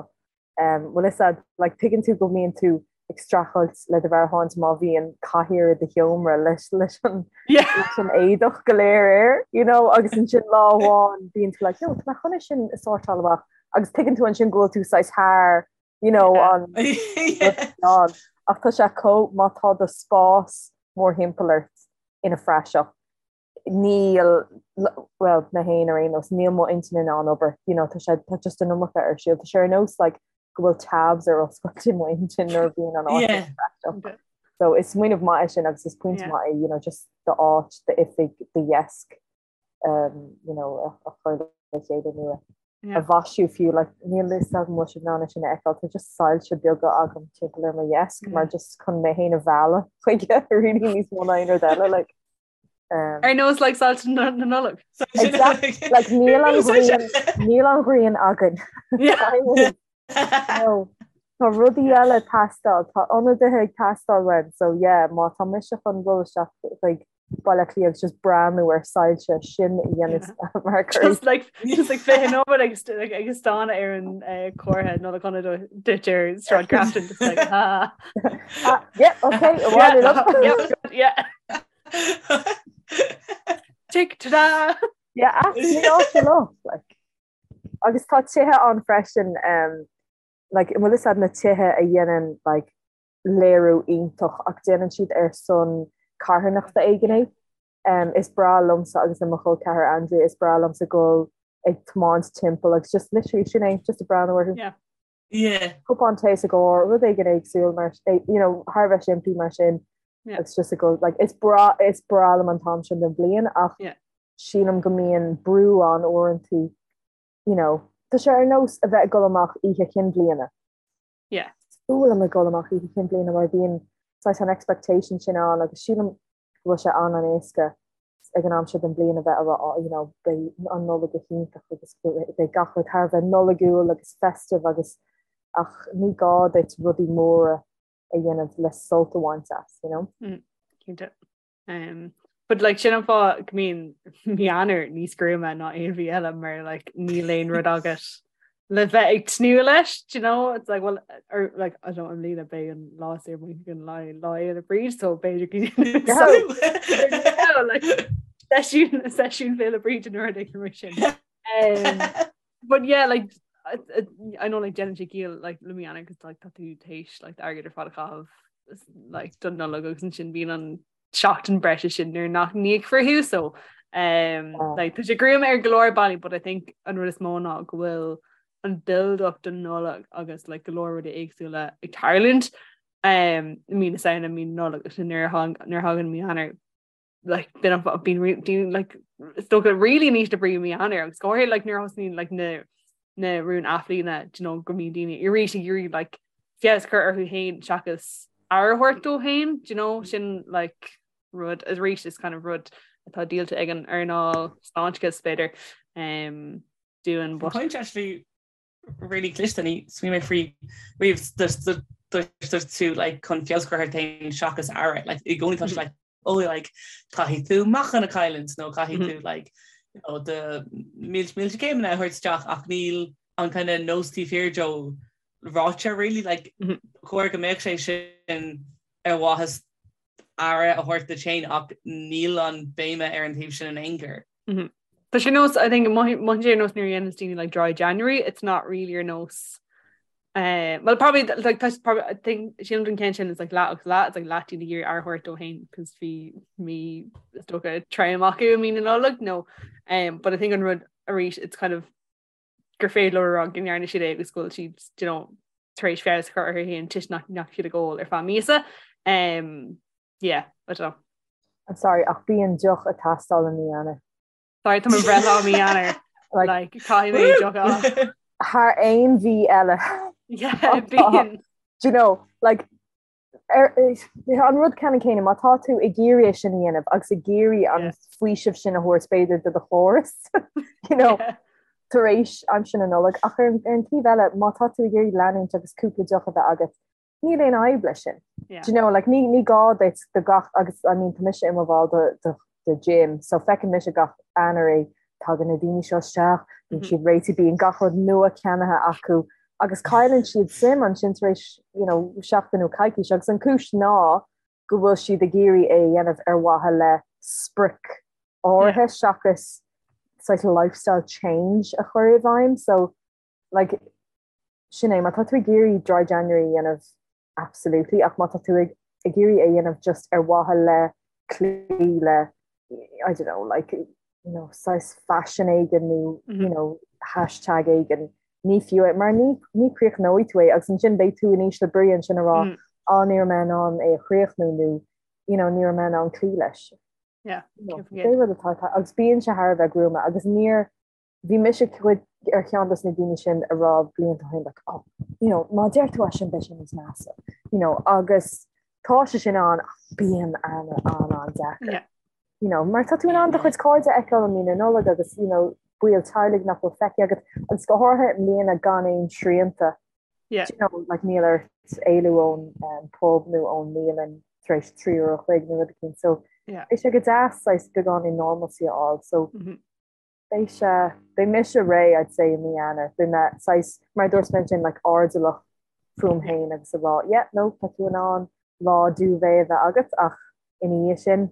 Um, bhfuil fhios a'd, like, tuigeann tú go mbíonn tú ag streachailt le do mheabhairshláinte má bhíonn cathaoir i do sheomra leis leis an Yeah. leis an éadach go léir air, you know, agus ansin lá amháin bíonn tú like, no, tá mé chun é sin a sórtáil amach agus tuigeann tú ansin go bhfuil tú saghas thar, you know, Yeah. an an ach tá sé chomh má tá do spás mórthimpeall ort ina phraiseach níl, bhuel, mé féin ar aon nós, níl mo intinn in ann obair, you know, tá sé, tá just an iomarca ar siúl. Tá sé ar nós like go bhfuil tabs ar oscailt i mo intinn nuair a bhíonn an áit Yeah. praiseach. So is smaoineamh maith é sin agus is pointe Yeah. maith é, you know, just d'áit, d'oifig, do dheasc, um, you know, a, a chur le chéile nó a Yeah. a mhaisiú fiú, like, níl fhios agam bhfuil sibh in ann é sin a fheiceáil, tá just soilse beaga agam timpeall ar mo dheasc mar just chun mé féin a mhealladh chuige really níos mó ná aon rud eile, like. Um, Ar nós like soilse na na Nollag. Exactly. Like níl an ghrian níl an ghrian againn. Yeah. No. Tá rudaí eile ag teastáil, tá ionadaithe ag teastáil uainn, so yeah, má tá mise chun dul isteach chuig Baile Átha Cliath agus just breathnú ar soilse sin a dhéanamh mar cur Just like just like fiche nóiméad agus like agus stánadh ar an eh, comhartha Nollaig Shona duit ar Sráid Grafton just like ha. Ah, yeah, okay, yeah, yeah, yeah. Tick ta-da! Yeah, ní áit leo, like. Agus tá tithe ann freisin um, like, bhfuil fhios a'd na tithe a dhéanann like, léiriú iontach ach déanann siad ar son carthanachta éigin é. Um, is breá liomsa agus le mo chol ceathar Andrea, is breá liomsa dul ag tiomáint timpeall agus just literally sin é, just ag breathnú orthu. Yeah. Yeah. Cupán tae sa gcarr, rud éigin éagsúil mar, you know, thar a bheith simplí mar sin. Yeah. Agus just ag dul, like, is breá, is breá liom an t-am sin den bhliain ach Yeah. sílim go mbíonn brú ann uaireanta, you know, tá sé ar nós a bheith ag dul amach oíche chinn bliana. Yeah. Is fuath liom ag dul amach oíche chinn bliana mar bíonn saghas an expectation sin ann agus sílim go bhfuil sé an-an-éasca ag an am seo den bhliain a bheith ag rá oh you know beidh an Nollaig go hiontach agus beidh gach rud thar a bheith Nollaigiúil agus festive agus ach ní gá duit rudaí móra a dhéanamh le sult a bhaint as, you know? Mm, cinnte. Um, but like sin an fáth go mbíonn mí Eanáir níos gruama ná aon mhí eile mar like níl aon rud agat le bheith ag tnúth leis, do you know? It's like, well, or like, I don't know, i mbliana beidh an lá saor muid an lá Lá Fhéile Bríde, so b'fhéidir go like, seisiún seisiún Féile Bríde nó rud éigin mar sin. Um, but yeah, like, I, I, I know like déanann sé ciall like le mí Eanáir cos like tá tú théis like airgead ar fad a chaitheamh like don Nollaig agus ansin bíonn an seachtain breise sin nuair nach n-íocfar thú so um, Oh. like, tá sé gruama ar go leor bealaí but I think an rud is mó ná go bhfuil an build up don Nollaig agus like, go leor rudaí éagsúla ag tarlúint um, i mí na Samhna mí na Nollag agus nuair a thang- nuair a thagann mí Eanáir like, bíonn an- bíonn re- bíonn, like, is dócha really in ísle brí mí Eanáir agus go háirithe like, nuair a thosnaíonn like, na na rúin athbhliana do you know, go mbíonn daoine arís ag iarraidh like, feabhas a chur orthu féin seachas aire a thabhairt dóibh féin, do you know, sin like, rud arís is kind of rud atá díolta ag an earnáil sláinteachais b'fhéidir um, dúinn but Point actually really cliste ní smaoinigh mé faoi riamh dúirt tú like chun feabhas a chur ort féin seachas aire like i gcónaí tá sé like oh like caithfidh tú meáchan a chailliúint nó caithfidh tú like you know do mílte mílte céimeanna a thabhairt isteach ach níl an kind of nós taobh thiar de ráite really like chóir go mbeadh sé sin ar mhaithe aire a thabhairt duit féin ach níl an béime ar an taobh sin in aon chor. Tá sé nós I think mothaíonn sé ar nós nuair a dhéanann daoine like dry January it's not really ar nós. Uh, well probably like tá probably I think sílim don ceann sin is like leath agus leath it's like leath daoine ag iarraidh aire a thabhairt dóibh féin cos bhí mí is dócha trom acu i mí na Nollag no um, but I think an rud arís it's kind of gur féidir leo a rá go ndearna siad é agus go bhfuil siad you know, tar éis feabhas a chur orthu féin toisc nach ndeachaigh siad ag ól ar feadh míosa um, yeah I don't know. I'm sorry ach bíonn deoch ag teastáil i mí Eanáir. Sorry tá mo bhreithlá i mí Eanáir. Like caithfidh mé deoch a fháil. Thar aon mhí eile. Yeah bíonn. Do you know, like ar, an rud ceannann céanna, má tá tú ag iarraidh é sin a dhéanamh agus ag iarraidh an faoiseamh sin a thabhairt b'fhéidir do do chóras, you know, tar éis aimsir na Nollag, ach ar, ar an taobh eile, má tá tú ag iarraidh leanúint agus cúpla deoch a bheith agat, níl aon fhadhb leis sin. Yeah. Do you know, like, ní, ní gá duit do gach, agus I mean, tá mise i mo bhall de, de, de gym, so feiceann mise gach Eanáir é, tagann na daoine seo isteach, bíonn siad réitithe, bíonn gach rud nua ceannaithe acu, agus cailleann siad suim ansin tar éis, you know, seachtain nó coicís, agus an cúis ná go bhfuil siad ag iarraidh é a dhéanamh ar mhaithe le sprioc áirithe seachas saghas lifestyle change a chur i bhfeidhm, so like, sin é, má tá tú ag iarraidh dry January a dhéanamh, absolutely, ach má tá tú ag ag iarraidh é a dhéanamh just ar mhaithe le cloí le, I don't know, like, you know, saghas fashion éigin nó, you know, hashtag éigin, ní fiú é, mar ní, ní chríochnóidh tú é agus ansin beidh tú in ísle brí ansin a rá, á ní raibh mé in ann é a chríochnú nó, you know, ní raibh mé in ann cloí leis. Yeah, You know, pé rud atá, agus bíonn sé thar a bheith gruama agus níor, bhí mise cuid ar cheann dos na daoine sin a raibh blianta ó shin like oh you know má deir tú é sin beidh sé níos measa you know agus tá sé sin ann ach bíonn an an an deacair. Yeah. You know, mar tá tú in ann do chuid cairde a fheiceáil i mí na Nollag agus you know, baill teaghlaigh nach bhfuil feicthe agat agus go háirithe i mbliana gan aon srianta. Yeah. You know, like níl ort éalú ón um, pub nó ón mbialann tar éis 3 uair a chloig nó rud éicint. So yeah. beidh sé go deas saghas beagáinín normalcy a fháil. So mm -hmm. Beidh sé, beidh mise réidh I'd say i mí Eanáir, beidh mé saghas, mar a dúirt mé ansin, like airdeallach fúm féin agus a rá yeah, no, tá tú in ann lá duvet a bheith agat ach ina dhiaidh sin,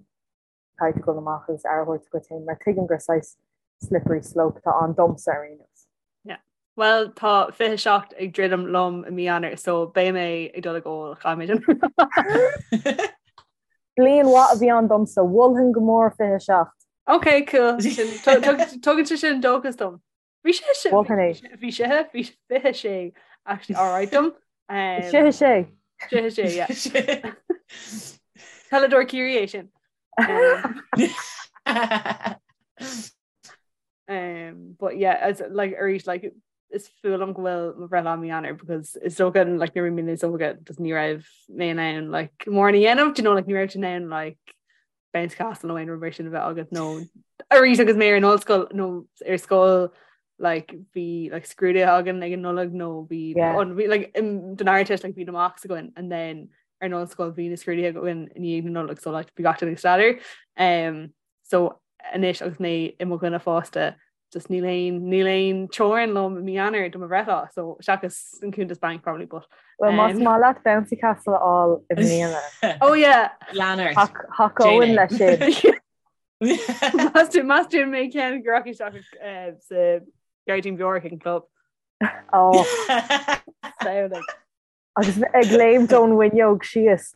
caithfidh tú dul amach agus aire a thabhairt duit féin mar tuigim gur saghas slippery slope atá ann domsa ar aon nós. Yeah. Well, tá 27 ag druidim liom i mí Eanáir so beidh mé ag dul ag ól, caithfidh mé sin. Bliain mhaith a bhí ann domsa, mholfainn go mór 27. Ok, cool. Tugann sé sin dóchas dom. Bhí sé sin bhí sé bhí 26 actually alright dom. Sé sé. Sé sé yeah. Peileadóir Ciarraí é sin. Um, but yeah, as like arís like is fuath liom go bhfuil mo bhreithlá i mí Eanáir because is dócha like nuair a bhí mé níos óige just ní raibh mé in ann like mórán a dhéanamh, do you know like ní raibh tú in ann like bouncy castle nó aon rud mar sin a bheith agat nó arís agus mé ar an ollscoil nó ar scoil like bhí like scrúduithe againn ag an Nollaig nó bhí yeah. an bhí like in don Ardteist like bhí na mocks againn and then ar an ollscoil bhí na scrúduithe againn i ndiaidh na Nollag so like bhí gach duine ag staidéar um so anois agus mé i mo dhuine fásta just níl aon níl aon teorainn liom i mí Eanáir do mo bhreithlá so seachas an cuntas banc probably but Well más um, maith leat bouncy castle a fháil i mbliana. Oh yeah. Lean ort. Thacóinn leis sin. Más tú mé ceann go rachaidh isteach eh, sa Gairdín Beorach ag an club. Oh. Samhlaigh. Agus ag léimt ón bhfuinneog síos.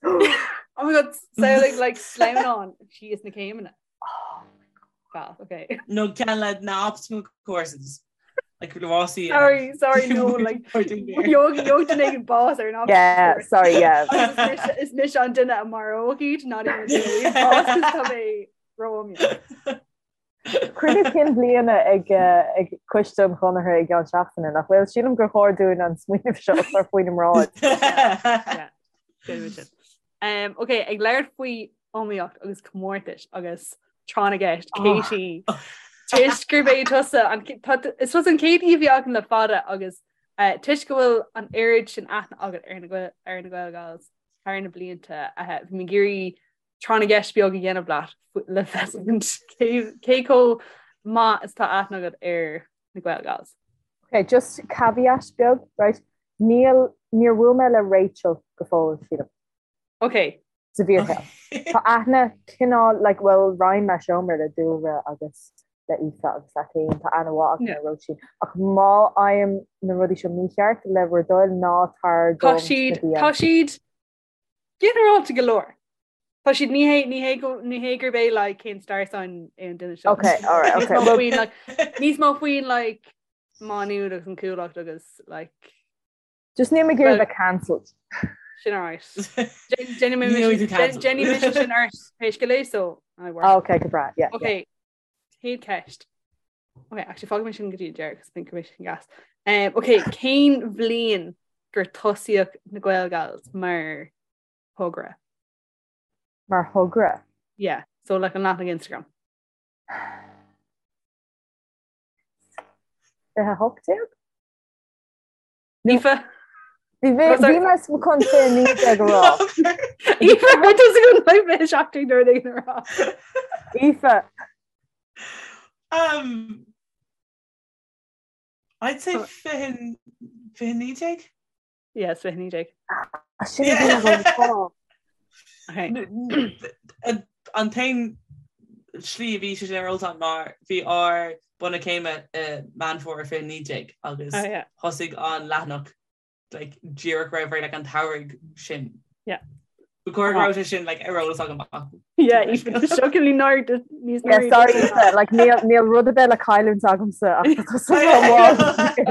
Oh my god, samhlaigh like sleamhnán síos na céimeanna. Oh my god. Well, okay. No ceann le na obstacle courses. Like rásaí. Sorry, sorry, no, like gheobhaidh duine éigin bás ar an obstacle Yeah, course. sorry, yeah. Agus is mise an duine a maróidh iad, not even duine bás cos tá mé ró-iomaíoch. Cruinniú cinn bliana ag ag Coiste an Chonartha i gceann seachtaine, nach bhfuil? Sílim gur chóir dúinn an smaoineamh seo a chur faoina mbráid. Yeah. Um, ok, ag labhairt faoi iomaíocht agus comórtais agus tráth na gceist, Katie, toisc gurb é tusa an is tusa an chéad aoi a bhí againn le fada agus uh, toisc go bhfuil an oiread sin aithne agat ar na ar na Gaelgals thar na blianta, uh, bhí mé ag iarraidh tráth na gceist beag a dhéanamh leat le feiscint cé chomh maith is atá aithne agat ar na Gaelgals. Ok, just caveat beag, right? Níl, níor bhuail mé le Rachel go fóill, sílim. Ok. Sa bhfíorshaol. Tá aithne cineál, like, well, roinn mé seomra le Dúlra agus. Le Aoife agus leat féin, tá aithne mhaith agam ar Róisín. Ach má fhaighim na rudaí seo mícheart, le bhur dtoil, ná tar dom sna DMs. Tá siad ginearálta go leor. Tá siad ní hé ní hé go ní hé gurb é like cén star sign é an duine seo. Okay, all right, okay. Níos mó faoin like níos mó faoin like Má Nuad agus an Chuallacht agus like Just níl mé ag iarraidh bheith cancelled. Sin alright. Déanfaidh mise sin ort pé scéal é so I work. Oh, okay, go breá, yeah. Okay, chéad ceist. Okay, actually fágfaidh mé sin go dtí an deireadh, cos I think go mbeidh sin gas. Um, okay, cén bhliain gur tosaíodh na Gaelgals mar thogra? Mar thogra? Yeah, so like an leathanach Instagram. 2018? Aoife. Bhí mé chun 19 a rá. Aoife go 17 nuair a rá. Aoife. Um, I'd say 2019? Yes, 2019. Sin An t-aon slí a bhí sé sin ar eolas mar bhí ár bronnadh céime i Meán Fómhair 2019 agus oh, thosaigh an leathanach like, díreach roimh ré like, an tsamhraidh sin. Yeah. Ba chóir go raibh sé sin like, ar eolas agam ach. Yeah, even shockingly nár níos Yeah, sorry, Aoife, like, níl níl rud ar bith le cailliúint agamsa ach tá tusa ró-mhall.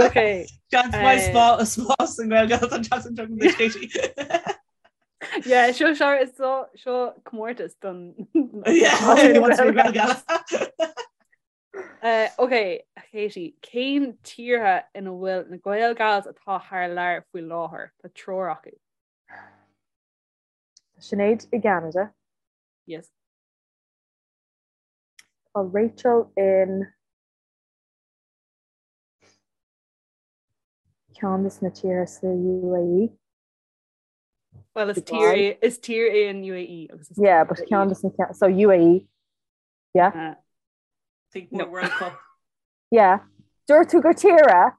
Okay. Seans maith spás an Ghaeilge an tseachtain seo don Katie. Yeah, seo seo is seo seo comórtas don Yeah, wants to be Gaeilge. Uh, ok, Katie, cén tíortha ina bhfuil na Gaelgals atá thar lear faoi láthair? Tá triúr acu. Tá Sinéad i gCeanada. Yes. Tá Rachel in ceann de na tíortha sa UAE. Well, is tír é is tír é an UAE agus is Yeah, but ceann de na so UAE. Yeah. Uh, Think more World Cup. Yeah. Dúirt tú gur tír é?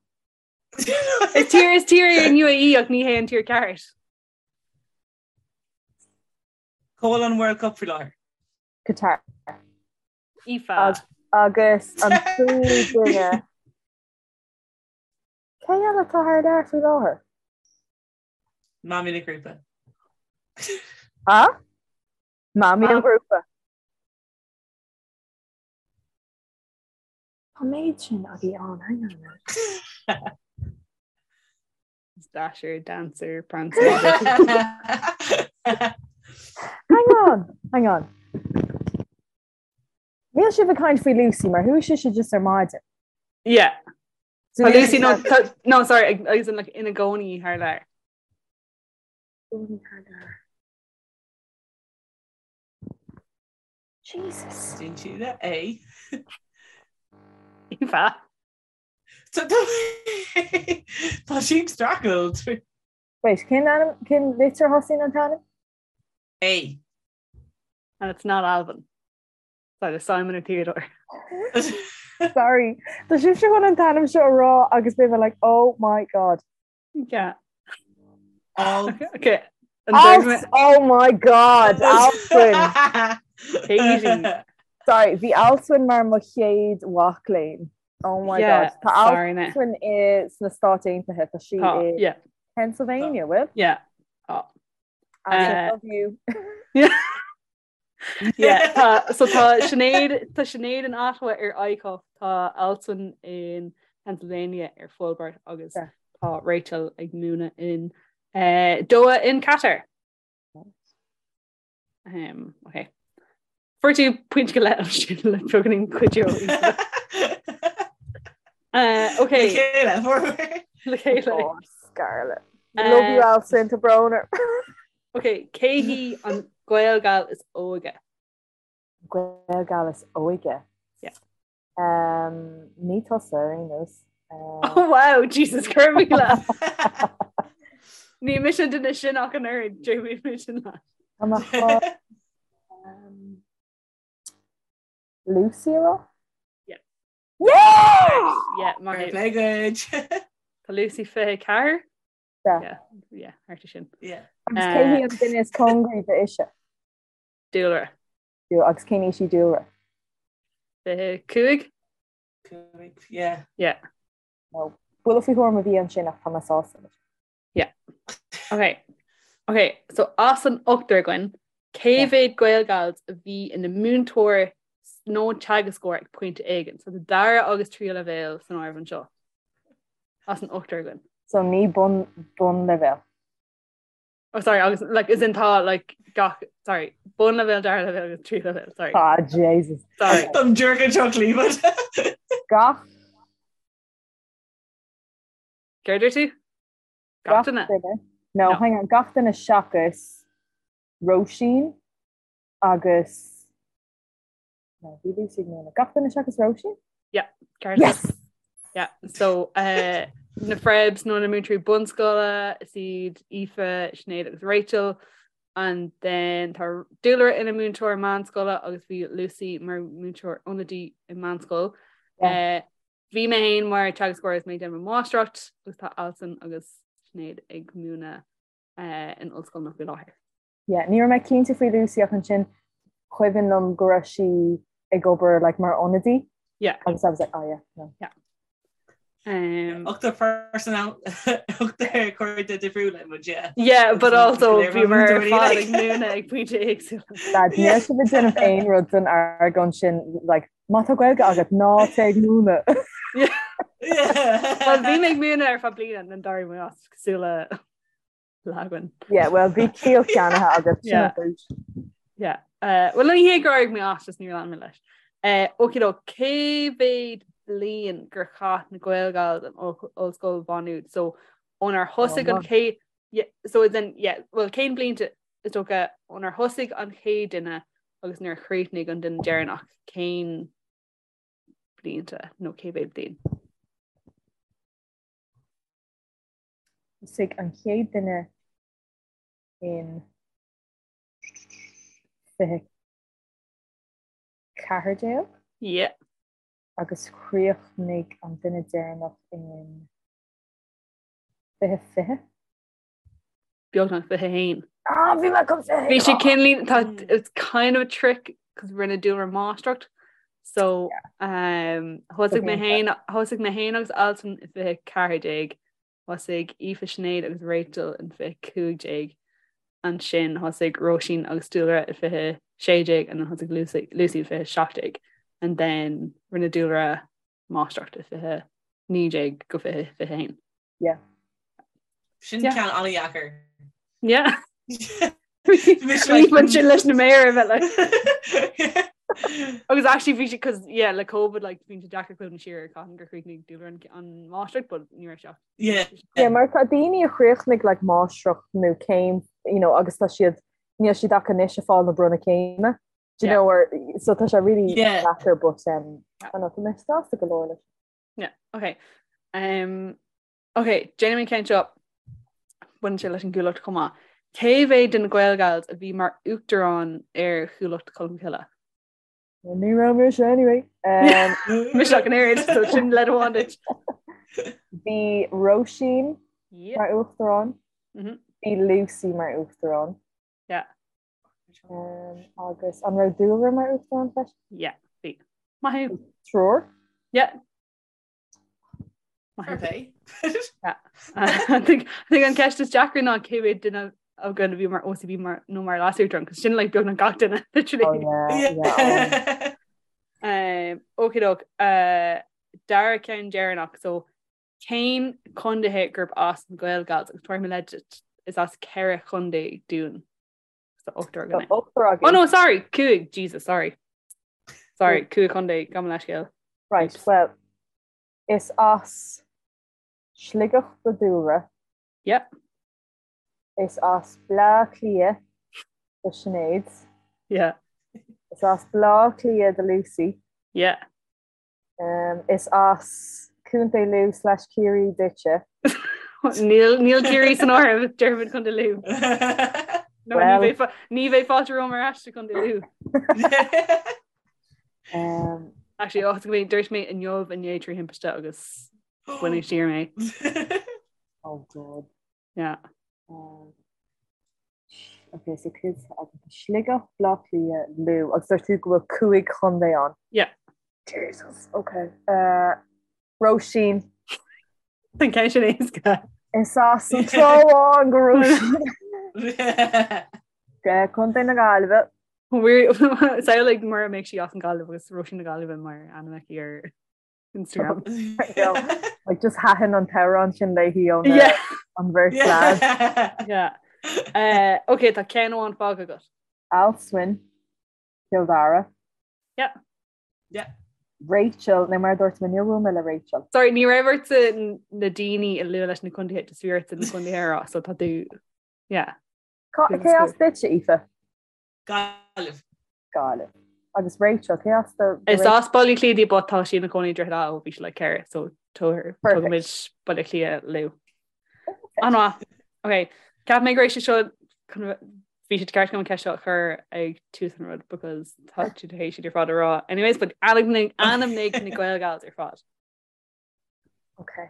Is tír is tír é an UAE ach ní hé an tír ceart. Cá bhfuil an World Cup faoi láthair? Qatar. Aoife. Agus an tríú duine. Cé eile atá thar lear faoi láthair? Mamaí na grúpa. Ha? Mamaí an ghrúpa. Tá méid sin agaí ann, hang on a minute. Dasher, Dancer, Prancer. Hang on, hang on. Níl sibh ag caint faoi Lucy mar chuaigh sise just ar maidin. Yeah. So Lucy no, no sorry agus in like ina gcónaí thar lear. Gcónaí thar lear. Jesus. Dún siad é. Aoife. Tá sí ag streachailt. Wait, cén ainm cén litir a thosaíonn an t-ainm? A. And it's not Alvin. It's either Simon or Theodore. Sorry. Tá sibhse chun an t-ainm seo a rá agus beidh mé like, oh my god. Yeah. All. Okay. Alf, oh my god, Alswyn. Katie. Sorry, bhí Alswyn mar mo chéad mhac léinn. Oh my Yeah, god. Tá sorry, mate. Alswyn i sna Stáit Aontaithe, tá sí Tá, i yeah. Pennsylvania, bhfuil? Yeah. Tá. I love you. Yeah. Yeah, tá, so tá Sinéad, tá Sinéad in Ottawa ar ICUF, tá Alswyn in Pennsylvania ar Fulbright agus Yeah. tá Rachel ag múineadh in eh, Doha in Qatar. Um, okay. Fuair tú pointe go leith ansin le beagáinín cuidiú. Uh, okay. Le chéile, fuair. Le chéile. Oh, Scarlett. Love you, Alswyn, tá brón orm. Ok, cé hí an Gaelgal is óige? Gaelgal is óige? Yeah. Um, ní tusa ar aon nós. Um, Oh wow, Jesus cur míle. Ní mise duine sin ach an oiread, Jamie mise leat. Tá mé chun, um, Lucy a rá? Yeah. Yeah! Yeah, maith Fair thú. play duit. Tá Lucy 24? Yeah. Yeah, yeah, thart air sin. Yeah. Agus cé hí an duine is cóngaraí d'Ise? Dúlra. Dú- Agus cén aois í Dúlra? 25? Yeah. Yeah. No. Buille faoi thuairim a bhí ansin ach tá mé sásta leis. Yeah. Ok. Ok, so as an ochtar againn, cé mhéad Gaelgals a bhí ina múinteoir nó teagascóir ag pointe éigin? So tá dara agus tríú leibhéal san áireamh anseo. As an ochtar againn. So ní bun bunleibhéal. Oh sorry, agus like as in tá like gach sorry, bunleibhéal, dara leibhéal agus tríú leibhéal, sorry. Ah Jesus. Sorry. Táim díreach anseo clíomh. Gach Céard a dúirt tú? Gach duine? No, no, hang on, gach duine seachas Róisín agus no, bhí Lucy ag múineadh. Gach duine seachas Róisín? Yeah, ceart. Yes! Yeah, so uh, na Frebs nó na múinteoirí bunscoile is iad Aoife, Sinéad agus Rachel and then tá Dúlra ina múinteoir meánscoile agus bhí Lucy mar múinteoir ionadaí i meánscoil. Yeah. Uh, Bhí mé féin mar teagascóir agus mé ag déanamh mo mháistreacht agus tá Alison agus Sinéad ag múineadh in ollscoileanna faoi láthair. Yeah, ní raibh mé cinnte faoi Lucy ach ansin cuimhin liom go raibh sí ag obair like mar ionadaí. Yeah. Agus I was like, oh yeah, no. Yeah. Um, Ochtar personal ochtar cairde difriúla muid, yeah. Yeah, but also bhí mar ar fad ag múineadh ag pointe éagsúla. Dad, níl sibh ag déanamh aon rud don argóint sin like, Má tá Gaeilge agat ná téigh ag múineadh. Well bhí mé ag múineadh ar feadh bliana and d'éirigh mé as cosúil le leagan. Yeah, well bhí ciall ceannaithe agat sin an chúis. Yeah. Uh, well ní hé gur éirigh mé as just níor lean mé leis. Uh, okey-doke, cé mhéad bliain gur chaith na Gaelgals in Ollscoil Mhá Nuad? So ónar thosaigh an chéad yeah, so then yeah, well cén blianta is dócha ónar thosaigh an chéad duine agus nuair a chríochnaigh an duine deireanach cén blianta nó cé mhéad bliain? Thosaigh an chéad duine in 2014? Yeah. Agus chríochnaigh an duine deireanach in 2020? Beagnach 21. Ah, bhí mé chun Bhí sé cineál tá it's kind of a trick cos rinne Dúlra máistreacht so um, thosaigh mé féin thosaigh mé féin agus Alison i 2014 thosaigh Aoife Sinéad agus Rachel in 2015 ansin thosaigh Róisín agus Dúlra i 2016 and then thosaigh Lucy, Lucy i 2017 and then rinne Dúlra máistreacht i 2019 go 2021. Yeah. Sin ceann an-dheacair. Yeah. Bhí sin leis na méara bheith like. Agus actually bhí sé cos yeah le COVID like bhí sé deacair cuimhneamh siar ar cathain gur chríochnaigh Dúlra an an máistreacht but ní raibh sé. Yeah. Yeah, mar tá daoine a chríochnaigh like máistreacht nó céim you know agus tá siad níl siad ach anois ag fáil na bronnadh céime. Do you know or so tá sé really deacair but um I don't know tá mé sásta go leor leis. Yeah, okay. Um, okay, déanfaidh mé an ceann seo baineann sé leis an gCuallacht chomh maith. Cé mhéad den Ghaelgals a bhí mar uachtarán ar Chuallacht Cholmcille? Ní raibh mise anyway. Um, Mise ach an oiread, so sin leid amháin duit. Bhí Róisín Yeah. mar uachtarán, Mhm. bhí Lucy mar uachtarán. Yeah. Um, agus an raibh Dúlra mar uachtarán freisin? Yeah, bhí. Maith thú. Triúr? Yeah. Maith thú. Yeah. I think I think an ceist is deacra ná cé mhéad duine againn a bhí mar OCB mar nó mar leasuachtarán, cos sin like beagnach gach duine literally. Oh, yeah, yeah. Um, okey-doke, uh, dara ceann deireanach, so cén contaetha gurb as na Gaelgals agus tabharfaidh mé leid duit, is as ceithre chontae dúinn. So ochtar againn. Ochtar againn. Oh no, sorry, cúig, Jesus, sorry. Sorry, cúig chontae, gabh mo leithscéal. Right, well, is as Sligeach do Dúlra. Yep. Is as Bleá Cliath do Sinéad. Yeah. Is as Bleá Cliath do Lucy. Yeah. Um, is as Contae Lú slash Ciarraí duitse. Níl níl Ciarraí san áireamh déarfainn Contae Lú. No, Well- ní bheidh ní bheidh fáilte romham ar ais go Contae Lú. Um, Actually, oh, go dúirt mé inniu inné trí thimpiste agus baineadh siar mé. oh God. Yeah. Um, okay, so cúig agus Sligeach, Bleá Cliath, Lú, agus dúirt tú go bhfuil cúig chontae ann. Yeah. Jesus, ok. Uh, Róisín. An ceann sin éasca. Is as an Trá Bháin do Róisín. Contae na Gaillimhe. Samhlaigh mura mbeadh sí as an Ghaillimh agus Róisín na Gaillimhe mar ainm aici ar Instagram. Like just thaitin an t-amhrán sin léi ón an bheirt lad. Yeah. Uh, ok, tá ceann amháin fágtha agat. Alswyn, Cill Dara. Yeah. Yeah. Rachel, nó mar dúirt mé níor bhuail mé le Rachel. Sorry, ní raibh ortsa na daoine a lua leis na contaetha, just bhí ortsa na contaetha a rá, so tá tú, yeah. Cé as duitse, Aoife? Gaillimh. Gaillimh. Agus Rachel, cé as do Is as Baile Átha Cliath di but tá sí ina cónaí i Droichead Átha ó bhí sí like 4, so tugaimid Baile Átha Cliath leo. An-mhaith. Ok, Ceap mé go raibh sé seo bhí sé ceart agam an ceist seo a chur ag tús an rud because tá tú tar éis iad ar fad a rá. Anyways, but ainmnigh ainmnigh na Gaelgals ar fad. Ok.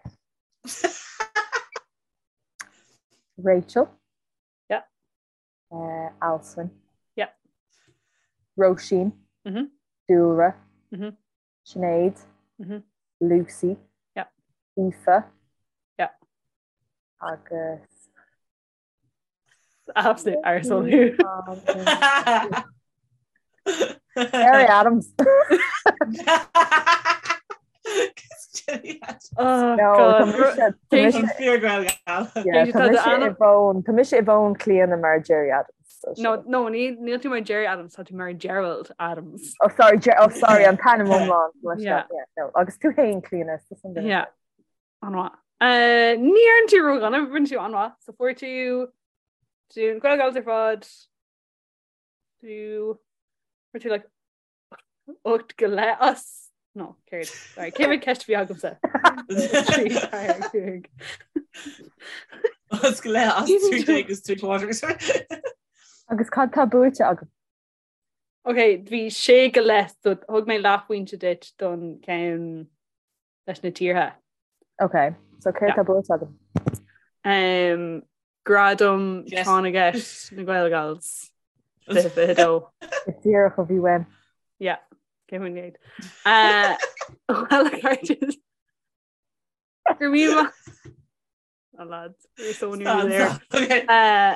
Rachel. Yeah. Uh, Alswyn. Yeah. Róisín. Mm -hmm. Dúlra. Mm -hmm. Sinéad. Mm -hmm. Lucy. Yeah. Aoife. Yeah. Agus Absolute arsehole thú. Gerry Adams. Oh, No, God. tá mise- tá mise- An fíor Gaelgal. yeah, Tá tá mise do i bhfón- tá mise i bhfón Clíona mar Gerry Adams. so No, sin. no, ní níl tú mar Gerry Adams, tá tú mar Gerald Adams. Oh, sorry, Ger- oh, sorry, an t-ainm iomlán. Yeah. Yeah, no. Agus tú féin Clíona, is an duine. Yeah. An-mhaith. Uh, ní dhearna tú ródhona, rinne tú an-mhaith. So fuair tú tú na Gaelgals ar fad. Tú fuair tú like 8 go leith as no, céard. Sorry, cé mhéad ceist a bhí agamsa? 3, 4, 5. As go leith as 3 agus 3 quarters. Agus cad tá buaite agam? Ok, bhí sé go leith, so thug mé leathphointe duit don ceann leis na tíortha. Ok, so céard tá buaite agam? Um, Gradam Yes. Tráth na gCeist na Gaelgals 2022. Is díreach a bhí uaim. Yeah, cé faoin gcéad. Uh, Well, a chairde. Go raibh míle maith. Oh, lads, we're so nearly there. Okay. Uh,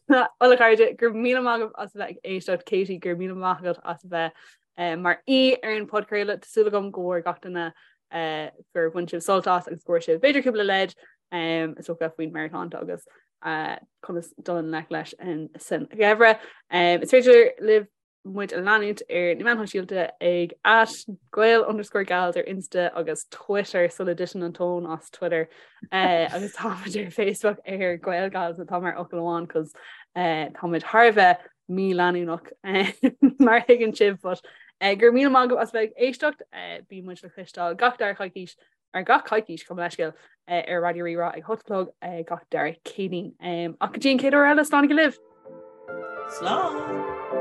Bhuel a chairde, go raibh míle maith agaibh as a bheith ag éisteacht Katie, go raibh míle maith agat as a bheith uh, mar aoi ar an podchraoladh. Tá súil agam go bhfuair gach duine uh, gur bhain sibh sult as agus go bhfuair sibh b'fhéidir cúpla leid um, is dócha faoin meabhairshláinte agus uh, conas dul i ngleic leis an san gheimhreadh. Um, is féidir libh muid a leanúint ar na meáin shóisialta ag at gael underscore gals ar Insta agus Twitter sula dtiteann an tóin as Twitter eh, agus táimid ar Facebook ar Gael Gals atá mar fhocal amháin cos eh, táimid thar a bheith míleanúnach eh, mar thuigeann sibh but eh, go raibh míle maith agaibh as bheith ag éisteacht eh, bíonn muid le cloisteáil gach dara coicís ar gach coicís gabh mo leithscéal ar Raidió Rí-Rá ag 8 a chlog gach dara Céadaoin. Ach go dtí an chéad uair eile, slán go libh! Slán!